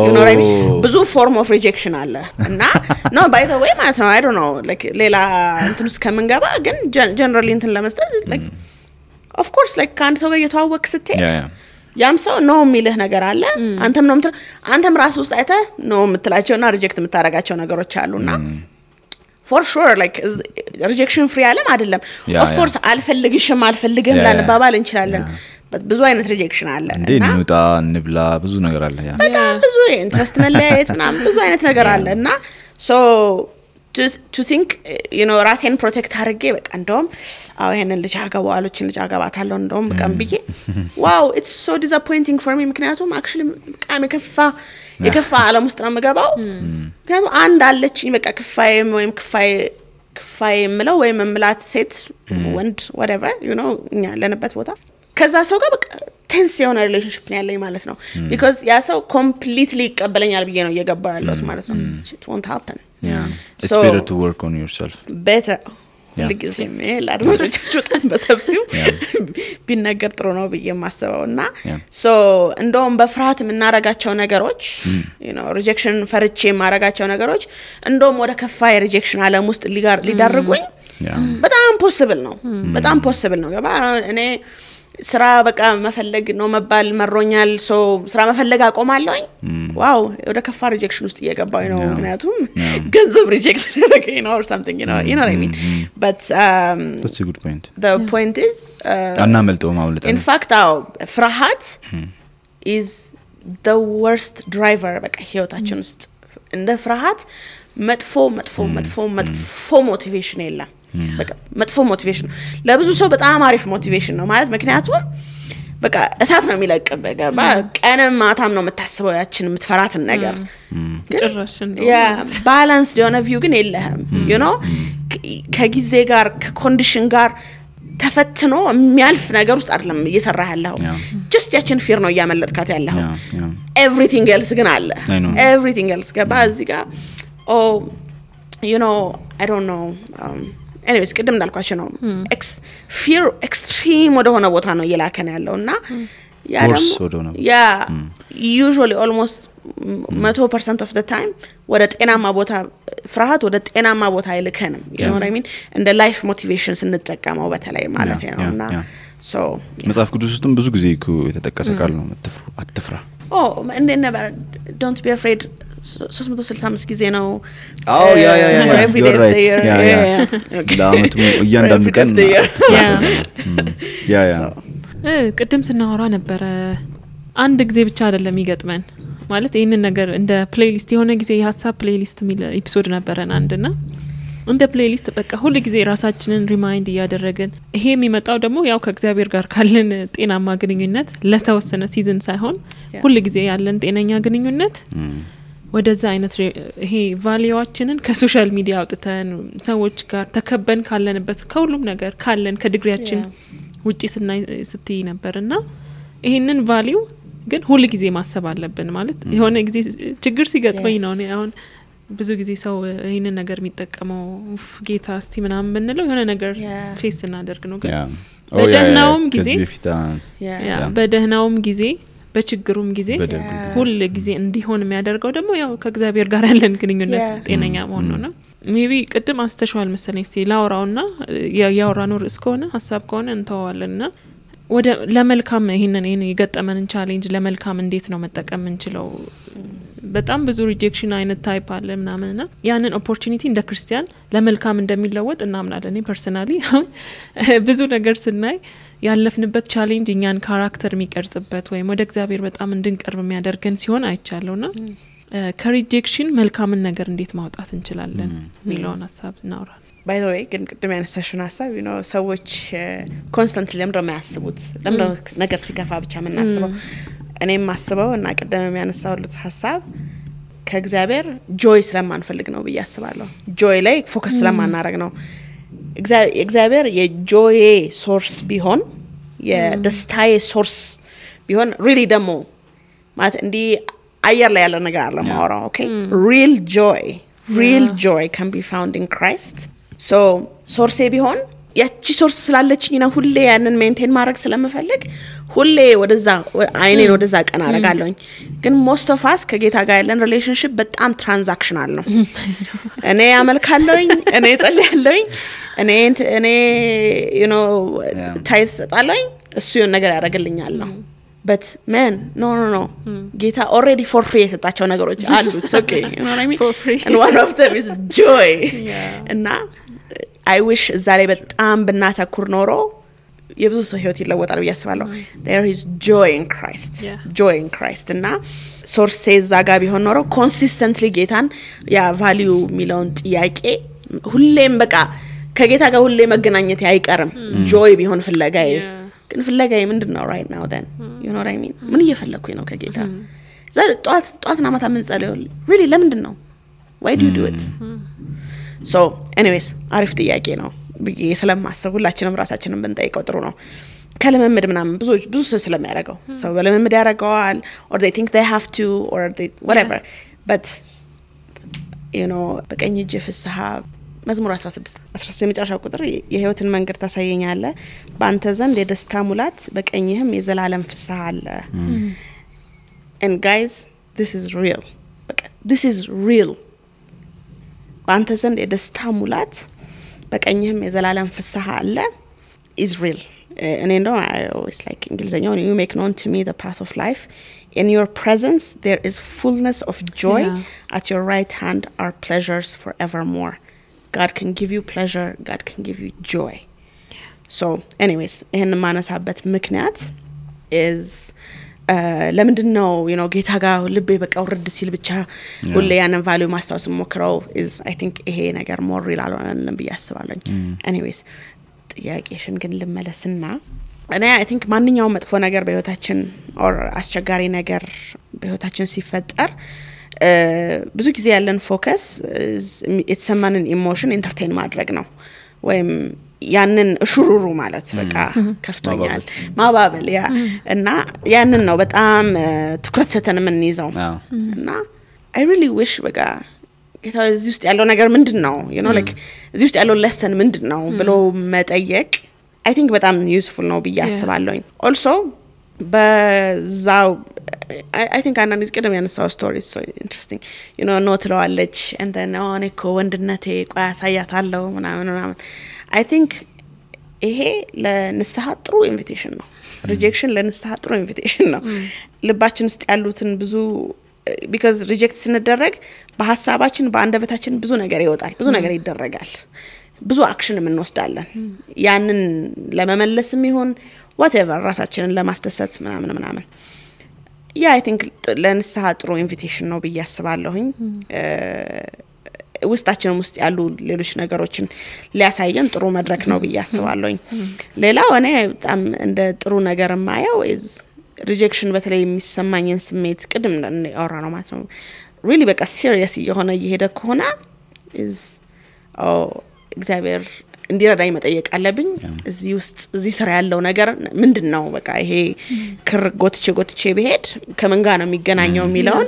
you know right ብዙ ፎርም ኦፍ ሪጀክሽን አለ እና no by the way ማለት ነው I don't know like ሌላ እንትን ውስጥ ከመንገባ ግን generally እንትን ለመስጠት like of course like ካንድ ሰው ጋር የተዋወቅ ስትሄድ ያም ሰው ነው የሚልህ ነገር አለ አንተም ራስ ውስጥ አይተህ ነው የምትላቸውና ሪጀክት የምታረጋቸው ነገሮች አሉና for sure like rejection free አለም አይደለም of course አልፈልግሽም ላንባባል እንችላለን ብዙ አይነት ሪጀክሽን አለ እና እንውጣ እንብላ ብዙ ነገር አለ በጣም ብዙ ኢንትረስት መለያየት ምናምን ብዙ አይነት ነገር አለ እና so to think you know ራሴን ፕሮቴክት አድርጌ በቃ እንደውም ይሄንን ልጅ አገባዋለችን ልጅ አገባታለሁ እንደውም በቃም ብዬ wow it's so disappointing for me ምክንያቱም actually በቃም የከፋ ዓለም ውስጥ ነው መገባው ምክንያቱም አንድ አለችኝ በቃ ክፋይ ምለው ወይ መምላት ሴት ወንድ whatever you know እኛ ለነበት ቦታ ከዛ ሰው ጋር በቃ ቴንስ የሆነ ሪሌሽንሺፕ ነው ያለኝ ማለት ነው because ያ ሰው completely ይቀበለኛል ብዬ ነው እየገባው ያለሁት ማለት ነው it won't happen it's better to work on yourself better ለጊዜም ለአድማጮቻችሁ በጣም በሰፊው ቢነገር ጥሩ ነው ብዬ ማሰበውና so እንደውም በፍርሃት የምናረጋቸው ነገሮች you know rejection ፈርቼ ማረጋቸው ነገሮች እንደውም ወደ ከፋ የሪጀክሽን ዓለም ውስጥ ሊዳርጉኝ በጣም ፖሲብል ነው ገባ እኔ ስራ በቃ መፈለግ ነው መባል መሮኛል ሶ ስራ መፈለግ አቆማለሁኝ ዋው ወደ ከፋ ሪጀክሽን ውስጥ እየገባው ነው ምክንያቱም ገንዘብ ሪጀክት ያደረገኝ ነው or something you know what I mean but that's a good point the point is አናመልጠው ማውለጥ in fact ፍርሃት is the worst driver በቃ ህይወታችን ውስጥ እንደ ፍርሃት መጥፎ ሞቲቬሽን የለም በቃ መጥፎ ሞቲቬሽን ለብዙ ሰው በጣም አሪፍ ሞቲቬሽን ነው ማለት ምክንያቱም በቃ እሳት ነው የሚለቅብህ ገባ ቀንም ማታም ነው የምታስበው ያችን የምትፈራትን ነገር ጭራሽን ነው ያ ባላንስ የሆነ ቪው ግን የለህም you know ከጊዜ ጋር ከኮንዲሽን ጋር ተፈትኖ የሚያልፍ ነገር ውስጥ አይደለም እየሰራህ ያለው just ያችን ፊር ነው ያመለጥካት ያለው everything else ግን አለ everything else ገባ እዚህ ጋር you know I don't know anyways ቅድም እንዳልኳችሁ ነው fear extreme ወደ ሆነ ቦታ ነው እየላከነ ያለውና ያ ደግሞ ያ usually almost 100% of the time ወደ ጤናማ ቦታ ፍርሃት ወደ ጤናማ ቦታ አይልከንም you know what I mean እንደ life motivation ስንጠቀመው በተለይ ማለት ነውና so መጽሐፍ ቅዱስ ውስጥም ብዙ ጊዜ የተጠቀሰ ቃል ነው አትፍራ and then never don't be afraid 365 ጊዜ ነው ያ every day of the year ለአመቱ እያንዳንዱ ቀን ያ ቅድም ስናወራ ነበር አንድ ጊዜ ብቻ አይደለም ይገጥመን ማለት ይሄንን ነገር እንደ ፕሌሊስት የሆነ ጊዜ የሐሳብ ፕሌሊስት ሚል ኤፒሶድ ነበረን አንድና እንደ ፕሌሊስት በቃ ሁሉ ጊዜ ራሳችንን ሪማይንድ ያደረግን ይሄ የሚመጣው ደግሞ ያው ከእግዚአብሔር ጋር ካለን ጤናማ ግንኙነት ለተወሰነ ሲዝን ሳይሆን ሁሉ ጊዜ ያለን ጤነኛ ግንኙነት ወደዛ አይነት ይሄ ቫልዩዋችንን ከሶሻል ሚዲያ አውጥተን ሰዎች ጋር ተከበን ካለንበት ከሁሉም ነገር ካለን ከዲግሪያችን ውጪ ስትይ ነበርና ይሄንን ቫልዩ ግን ሁሉ ጊዜ ማሰብ አለብን ማለት የሆነ ጊዜ ችግር ሲገጥመኝ ነው አሁን ብዙ ጊዜ ሰው ይሄንን ነገር የሚጠቀመው ጌታ እስቲ ምናምን ብንለው የሆነ ነገር ፌስ እናደርግ ነው ግን በደህናውም ጊዜ በደህናውም ጊዜ በችግሩም ጊዜ ሁሉ ጊዜ እንዲሆን የሚያደርገው ደግሞ ያው ከእግዚአብሔር ጋር ያለን ግንኙነት ጤነኛ መሆን ነው ሜቢ ቅድም አስተሽዋል መሰለኝ እስቲ ላውራውና ያውራኖር እስከሆነ ሐሳብ ከሆነ እንተዋለንና ወደ ለመልካም ይሄንን የገጠመንን ቻሌንጅ ለመልካም እንዴት ነው መጠቀም እንችለው በጣም ብዙ ሪጀክሽን አይነት ታይፕ አለ ምናምንና ያንን ኦፖርቹኒቲ እንደ ክርስቲያን ለመልካም እንደሚለወጥ እናምናለን እኔ ፐርሰናሊ ብዙ ነገር ስናይ ያለፍንበት ቻሌንጅ እኛን ካራክተር የሚቀርጽበት ወይም ወደ እግዚአብሔር በጣም እንድንቀርብ የሚያደርገን ሲሆን አይቻለውና ከሪጀክሽን መልካምን ነገር እንዴት ማውጣት እንችላለን ሚሊዮን ሐሳብ እናውራ by the way ግን ቅድም ያነሳሽውን ሐሳብ you know ሰዎች ኮንስታንትሊ ለምንድነው የሚያስቡት ለምንድነው ነገር ሲከፋ ብቻ የምናስበው እኔም ማስበው እና ቅድም ያነሳውልት ሐሳብ ከእግዚአብሔር ጆይ ስለማንፈልግ ነው በያስባለሁ ጆይ ላይ ፎከስ ስለማናረግ ነው እግዚአብሔር የጆይ ሶርስ ቢሆን የደስታዬ ሶርስ ቢሆን really ደሞ ማለት እንዲ አየር ላይ ያለ ነገር አለ ማውራው ኦኬ real joy can be found in Christ so ሶርሴ ቢሆን ያቺ ሶርስ ስላለችኝ ነው ሁሌ ያንን ሜንቴን ማድረግ ስለምፈልግ ሁሌ ወደዛ አይኔን ወደዛ ቀና አረጋለሁኝ ግን most of us ከጌታ ጋር ያለን ሪሌሽንሺፕ በጣም ትራንዛክሽናል ነው እኔ አመልካለሁኝ እኔ ጸልያለሁኝ እኔ you know ታይት ሰጣለሁኝ እሱ የሆነ ነገር ያደርግልኛል ነው but man no ጌታ already for free የሰጣቸው ነገሮች አሉ it's okay you know what I mean for free. and one of them is joy እና I wish ዛሬ በጣም ብናተኩር ኖሮ የብዙ ሰው ህይወት ይለወጣል ብዬ አስባለሁ there is joy in Christ እና ሶርስ ዛጋ ቢሆን ኖሮ consistently ጌታን ያ ቫልዩ ሚሊዮን ጥያቄ ሁሌም በቃ ከጌታ ጋር ሁሌ መገናኘት አይቀርም joy ቢሆን ፍለጋዬ ግን ፍለጋዬ ምንድነው right now then you know what I mean ምን እየፈለኩኝ ነው ከጌታ ዛሬ ጧትና ማታ ምን ጸልዩ really ለምንድን ነው why do you do it so anyways አሪፍ ጥያቄ ነው ብዬ ስለማስብ ሁላችንም ራሳችንን ብንጠይቀው ጥሩ ነው ከለመምድ ምናምን ብዙ ሰው ስለሚያደርገው ሰው በለመምድ ያደርገዋል or they think they have to or they whatever but you know በቀኝ እጅ ፍስሐ መዝሙር 16 የመጨረሻው ቁጥር የህይወትን መንገድ ታሳየኛለህ በአንተ ዘንድ የደስታ ሙላት በቀኝህም የዘላለም ፍስሐ አለ and guys this is real በአንተ ዘንድ የደስታ ሙላት በቀኝህም የዘላለም ፍስሐ አለ is real and I know I always like እንግሊዘኛው you make known to me the path of life in your presence there is fullness of joy at your right hand are pleasures forevermore God can give you pleasure God can give you joy so anyways ይሄን ማነሳበት ምክንያት is ለምንድነው ጌታ ጋር ልቤ በቃ ወርድ ሲል ብቻ ሁሌ ያንን ቫልዩ ማስታወስ ሞክረው is I think ይሄ ነገር more real አልሆነም ብዬ አስባለሁ anyways ጥያቄሽን ግን ልመለስና እኔ I think ማንኛውም መጥፎ ነገር በህይወታችን or አስቸጋሪ ነገር በህይወታችን ሲፈጠር ብዙ ጊዜ ያለን ፎከስ የተሰማንን ኢሞሽን ኢንተርቴይን ማድረግ ነው ወይም ያንን ሹሩሩ ማለት በቃ ከፍቶኛል ማባበል ያ እና ያንን ነው በጣም ትኩረት ሰተን ምን ይዘው እና I really wish በቃ ጌታ እዚህ ውስጥ ያለው ነገር ምንድነው like እዚህ ውስጥ ያለው lesson ምንድነው ብሎ መጠየቅ I think በጣም useful ነው ብዬ አስባለሁኝ also በዛው I think አንዳንድ ጊዜ ቀደም ያነሳው story so interesting no ትለዋለች and then እኮ ወንድነቴ ቆይ አሳያታለሁ ምናምን I think ይሄ ለንስሐ ጥሩ ኢንቪቴሽን ነው rejection ለንስሐ ጥሩ ኢንቪቴሽን ነው ልባችን ውስጥ ያሉትን ብዙ because reject ስንደረግ በሐሳባችን በአንደበታችን ብዙ ነገር ይወጣል ብዙ ነገር ይደረጋል ብዙ አክሽን እንወስዳለን ያንን ለመመለስም ይሁን whatever ራሳችንን ለማስደሰት ምናምን I think ለንስሐ ጥሩ ኢንቪቴሽን ነው ብዬ አስባለሁኝ ውስጣችን ውስጥ ያሉ ሌሎች ነገሮችን ሊያሳየን ጥሩ መድረክ ነው ብዬ አስባለሁኝ ሌላው እኔ በጣም እንደ ጥሩ ነገር ማየው is rejection በተለይ የሚሰማኝን ስሜት ቅድም አወራ ነው ማለት ነው really በቃ serious የሆነ እየሄደ ከሆነ is እግዚአብሔር እንዲረዳኝ መጠየቅ አለብኝ እዚህ ውስጥ እዚህ ስራ ያለው ነገር ምንድነው በቃ ይሄ ክር ጎትቼ በሄድ ከምን ጋር ነው የሚገናኘው የሚለውን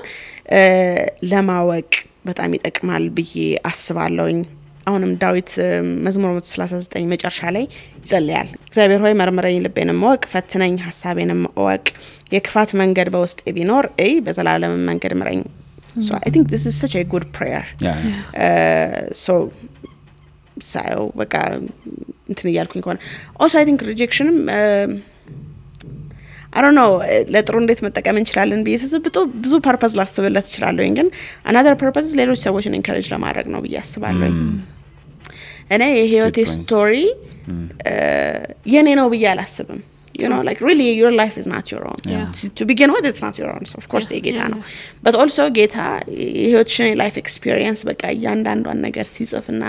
ለማወቅ በጣም ይጠቅማል ብዬ አስባለሁኝ አሁንም ዳዊት መዝሙር 139 መጨረሻ ላይ ይጸልያል እግዚአብሔር ሆይ መርምረኝ ልቤንም ወቅ ፈትነኝ ሐሳቤንም ወቅ የክፋት መንገድ በውስጤ ቢኖር በዘላለም መንገድ ምረኝ so I think this is such a good prayer so በቃ እንትን ያልኩኝ እንኳን also I think rejection I don't know ለጥሩ እንዴት መጠቀም እንችላለን በየሰብቶ ብዙ ፐርፐዝ ላስብለት ይችላል ግን another purpose ሌሎች ሰዎችን encourage ለማድረግ ነው ብዬ አስባለሁ እኔ የህይወቴ ስቶሪ የኔ ነው ብዬ አላስብም like really your life is not your own to begin with it's not your own so of course ጌታ ነው but also ጌታ የህይወትሽን life experience በቃ ያንዳንዷን ነገር ሲጽፍና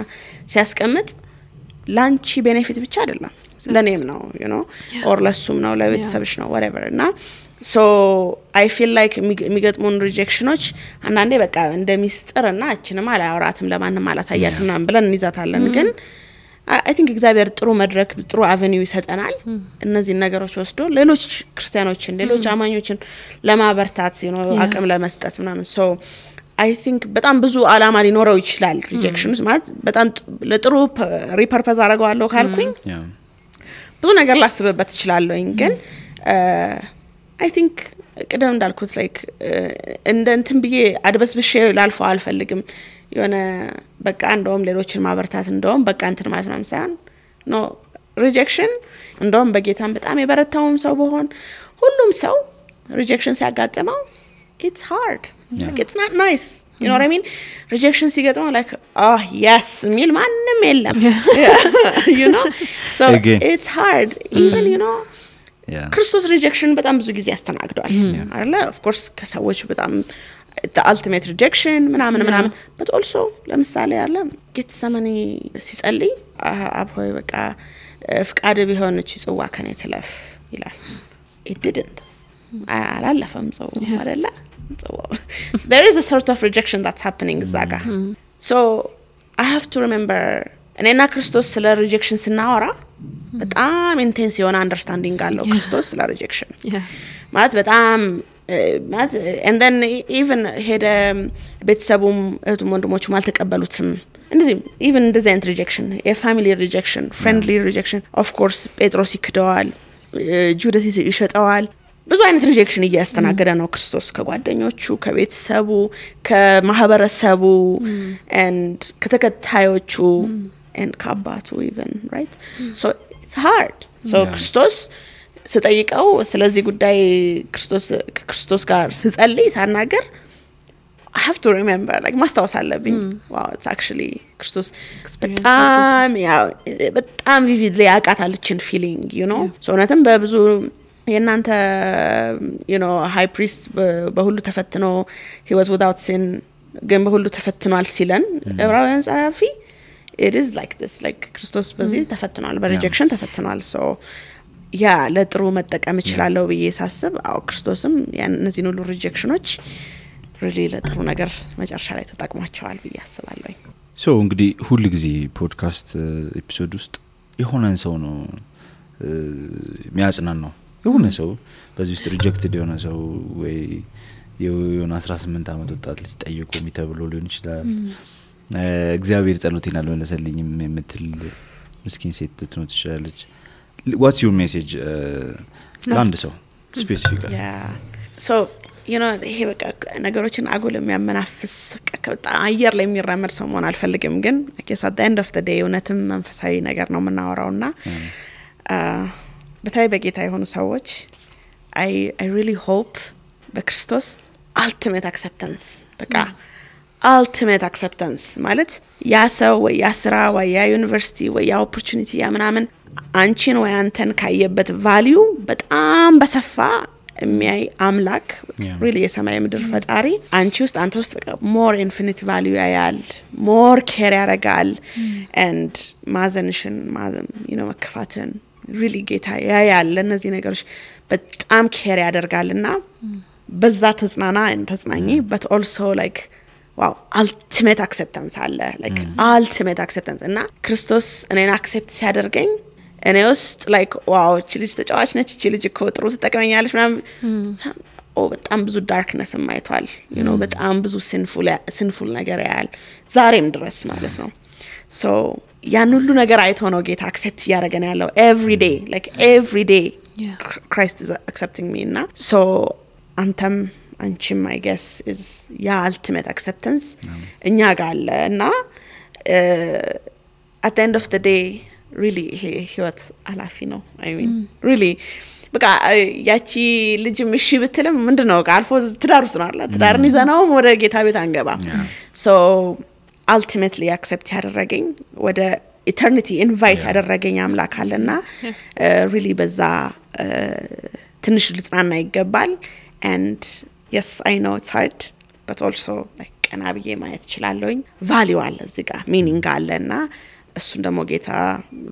ሲያስቀምጥ ላንቺ ቤኔፊት ብቻ አይደለም ለኔም ነው or ለሱም ነው ለቤተሰብሽ ነው whatever እና so I feel like የሚገጥሙን ሪጀክሽኖች አንዳንዴ በቃ እንደሚስጥርና እቺንም አላወራትም ለማንም አላሳያትም ምናምን ብለን እንይዛታለን ግን I think እግዚአብሔር ጥሩ መድረክ ጥሩ አቨኒው ይሰጠናል እነዚህ ነገሮች ወስዶ ሌሎች ክርስቲያኖችን ሌሎች አማኞችን ለማበርታት አቅም ለመስጠት ምናምን so I think በጣም ብዙ አላማ ሊኖረው ይችላል ሪጀክሽንስ ማለት በጣም ለጥሩ ሪፐርፐዝ አደርገዋለሁ ካልኩኝ ብዙ ነገር ላስብበት ይችላልኝ ግን I think ቀደም እንዳልኩት like እንትን ብዬ አድበስብሼ ላልፈው አልፈልግም በቃ እንደውም ሌሎችን ማበርታት እንደውም በቃ እንትን ማለት ነው ሳይሆን no rejection እንደውም በጌታም በጣም የበረታውም ሰው በሆን ሁሉም ሰው rejection ሲያጋጥመው it's hard like it's not nice you know what I mean rejection ሲገጥመው like yes ሚል ማንንም የለም you know so it's hard even ክርስቶስ rejection በጣም ብዙ ጊዜ ያስተናግዷል አይደለ of course ከሰዎች በጣም the ultimate rejection ምናምን but also ለምሳሌ ያለ ጌትሰማኒ ሲጸልይ አብሆይ በቃ ፍቃድ ቢሆን እቺ ጽዋ ከኔ ትለፍ ይላል it didn't አላለፈም ጽዋ አይደለ ጽዋ there is a sort of rejection that's happening zaga so I have to remember እኔና ክርስቶስ ስለ rejection ስናወራ በጣም ኢንቴንስ የሆነ አንደርስታንዲንግ አለው ክርስቶስ ስለ rejection ማለት በጣም and then even ሄደ ቤተሰቡም እህቱም ወንድሞቹም አልተቀበሉትም እንደዚህ even እንደዚህ አይነት rejection a family rejection friendly rejection of course ጴጥሮስ ይክደዋል ጁዳስ ይሸጠዋል ብዙ አይነት rejection እያስተናገደ ነው ክርስቶስ ከጓደኞቹ ከቤተሰቡ ከማህበረሰቡ and ከተከታዮቹ and ከአባቱ even right so it's hard so ክርስቶስ ስጠይቀው ስለዚህ ጉዳይ ክርስቶስ ጋር ስጸልይ ሳናገር I have to remember like ማስታወስ አለብኝ wow it's actually ክርስቶስ በጣም vividly ያቃታለችን feeling you know so እውነትም በብዙ የናንተ you know high priest በሁሉ ተፈትኖ he was without sin ግን በሁሉ ተፈትኗል ሲለን ዕብራውያን ጸሐፊ it is like this like ክርስቶስ በዚህ ተፈትኗል በrejection ተፈትኗል so ያ ለጥሩ መጠቀም ይችላል ብዬ ሳስብ አው ክርስቶስም እነዚህን ሁሉ ሪጀክሽኖች really ለጥሩ ነገር መጨረሻ ላይ ተጠቅሟቸዋል ብዬ አስባለሁ so እንግዲህ ሁሉ ጊዜ ፖድካስት ኤፒሶድ ውስጥ የሆነን ሰው ነው የሚያጽናን ነው የሆነ ሰው በዚህ ውስጥ ሪጀክትድ የሆነ ሰው ወይ የሆነ 18 ዓመት ወጣት ልጅ ጠይቆ የሚተብሎ ሊሆን ይችላል እግዚአብሔር ጸሎቴን አልመለሰልኝም የምትል ምስኪን ሴት ልትኖር ትችላለች what's your message ለአንድ ሰው specifically yeah so you know ይሄ በቃ ነገሮችን አጉል የሚያመናፍስ በጣም አየር ላይ የሚራመድ ሰው መሆን አልፈልግም ግን I guess at the end of the day እውነትም መንፈሳዊ ነገር ነው የምናወራውና በታይ በጌታ የሆኑ ሰዎች I really hope በክርስቶስ ultimate acceptance በቃ ultimate acceptance ማለት ያ ሰው ወይ ያ ስራ ወይ ያ ዩኒቨርሲቲ ወይ ያ opportunity ያ ምናምን አንቺን ወይ አንተን ካየበት value በጣም በሰፋ የሚያይ አምላክ really የሰማይ ምድር ፈጣሪ አንቺ ውስጥ አንተ ውስጥ በቃ more infinite value ያያል more care ያረጋል and ማዘንሽን you know መከፋትን really ጌታ ያያል ለነዚህ ነገሮች በጣም care ያደርጋልና በዛ ተጽናኚ but also like wow ultimate acceptance አለ like ultimate acceptance እና ክርስቶስ እኔን accept ሲያደርገኝ እኔ ውስጥ like wow እቺ ልጅ ተጫዋች ነች እቺ ልጅ እኮ ጥሩ ተጠቅመኛለች ምናምን በጣም ብዙ darkness ማይቷል you know በጣም ብዙ sinful ነገር ያያል ዛሬም ድረስ ማለት ነው so ያን ሁሉ ነገር አይቶ ነው ጌታ accept ያደረገን ያለው every day Christ is accepting me እና so አንተም አንቺም I guess is ya ultimate acceptance እኛ ጋር አለ እና at the end of the day really ህይወት አላፊ ነው I mean really በቃ ያቺ ልጅም እሺ ብትልም ምንድነው አልፎ ትዳር ውስጥ ነው አይደል ትዳርን ይዘናው ወደ ጌታ ቤት አንገባ so ultimately accept ያደረገኝ ወደ eternity invite ያደረገኝ አምላክ አለና really በዛ ትንሽ ልጽናና ይገባል and yes I know it's hard but also like ቀናብዬ ማየት ይችላልኝ value አለ እዚህ ጋር meaning አለና እሱን ደግሞ ጌታ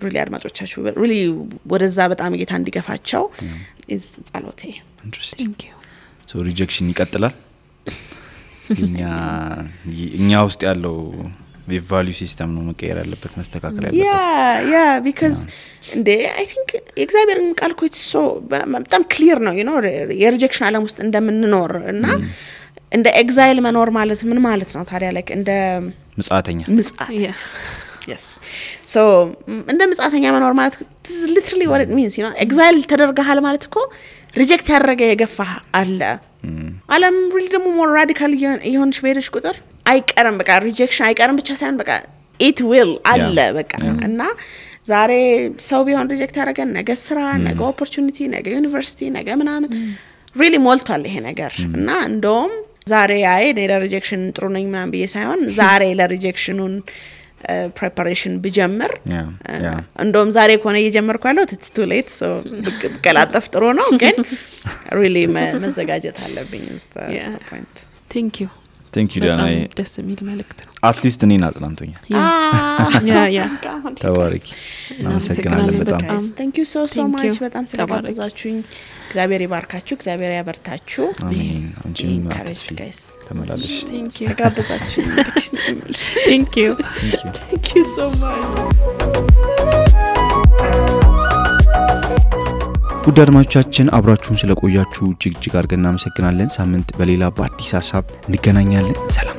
really አድማጮቻችሁ really ወደዛ በጣም ጌታ እንዲገፋቸው is ጸሎቴ interesting thank you so rejection ይቀጥላል እኛ ውስጥ ያለው የvalue system ነው መቀየር ያለበት መስተካከል ያለበት yeah because I think እግዚአብሔርን ቃል እኮ so በጣም clear ነው you know የሪጀክሽን ዓለም ውስጥ እንደምንኖር እና እንደ ኤግዛይል መኖር ማለት ምን ማለት ነው ታዲያ like እንደ ምጽአተኛ yes so እንደ ምጽአተኛ መኖር ማለት literally what it means you know ኤግዛይል ተደርገሃል ማለት እኮ ሪጀክት ያደረገ የገፋ አለ ዓለም really ደግሞ more radical ይሆንሽ በሄደሽ ቁጥር አይቀርም በቃ ሪጀክሽን አይቀርም ብቻ ሳይሆን በቃ it will አለ በቃ እና ዛሬ ሰው ቢሆን ሪጀክት ያደረገን ነገ ስራ ነገ opportunity ነገ ዩኒቨርሲቲ ነገ ምናምን really ሞልቷል ይሄ ነገር እና እንደውም ዛሬ ለሪጀክሽን ጥሩ ነኝ ምናምን ብዬ ሳይሆን ዛሬ ለሪጀክሽኑን preparation ብጀምር እንደውም ዛሬ ኮነ እየጀመርኩ ያለው it's too late so በቀላጠፍ ጥሩ ነው ግን really መዘጋጀት አለብኝ is the point thank you Diana ደስ የሚል መልእክት ነው at least እኔን አጥናንቶኛል ተባረክ እናመሰግናለን በጣም thank you so much በጣም ስለጋበዛችሁኝ እግዚአብሔር ይባርካችሁ እግዚአብሔር ያበርታችሁ አሜን አንቺም guys ተመላለሽ thank you ተጋበዛችሁ thank you so much ውድ አድማጮቻችን አብራችሁን ስለቆያችሁ እጅግ አድርገን እናመሰግናለን ሳምንት በሌላ በአዲስ ሐሳብ እንገናኛለን ሰላም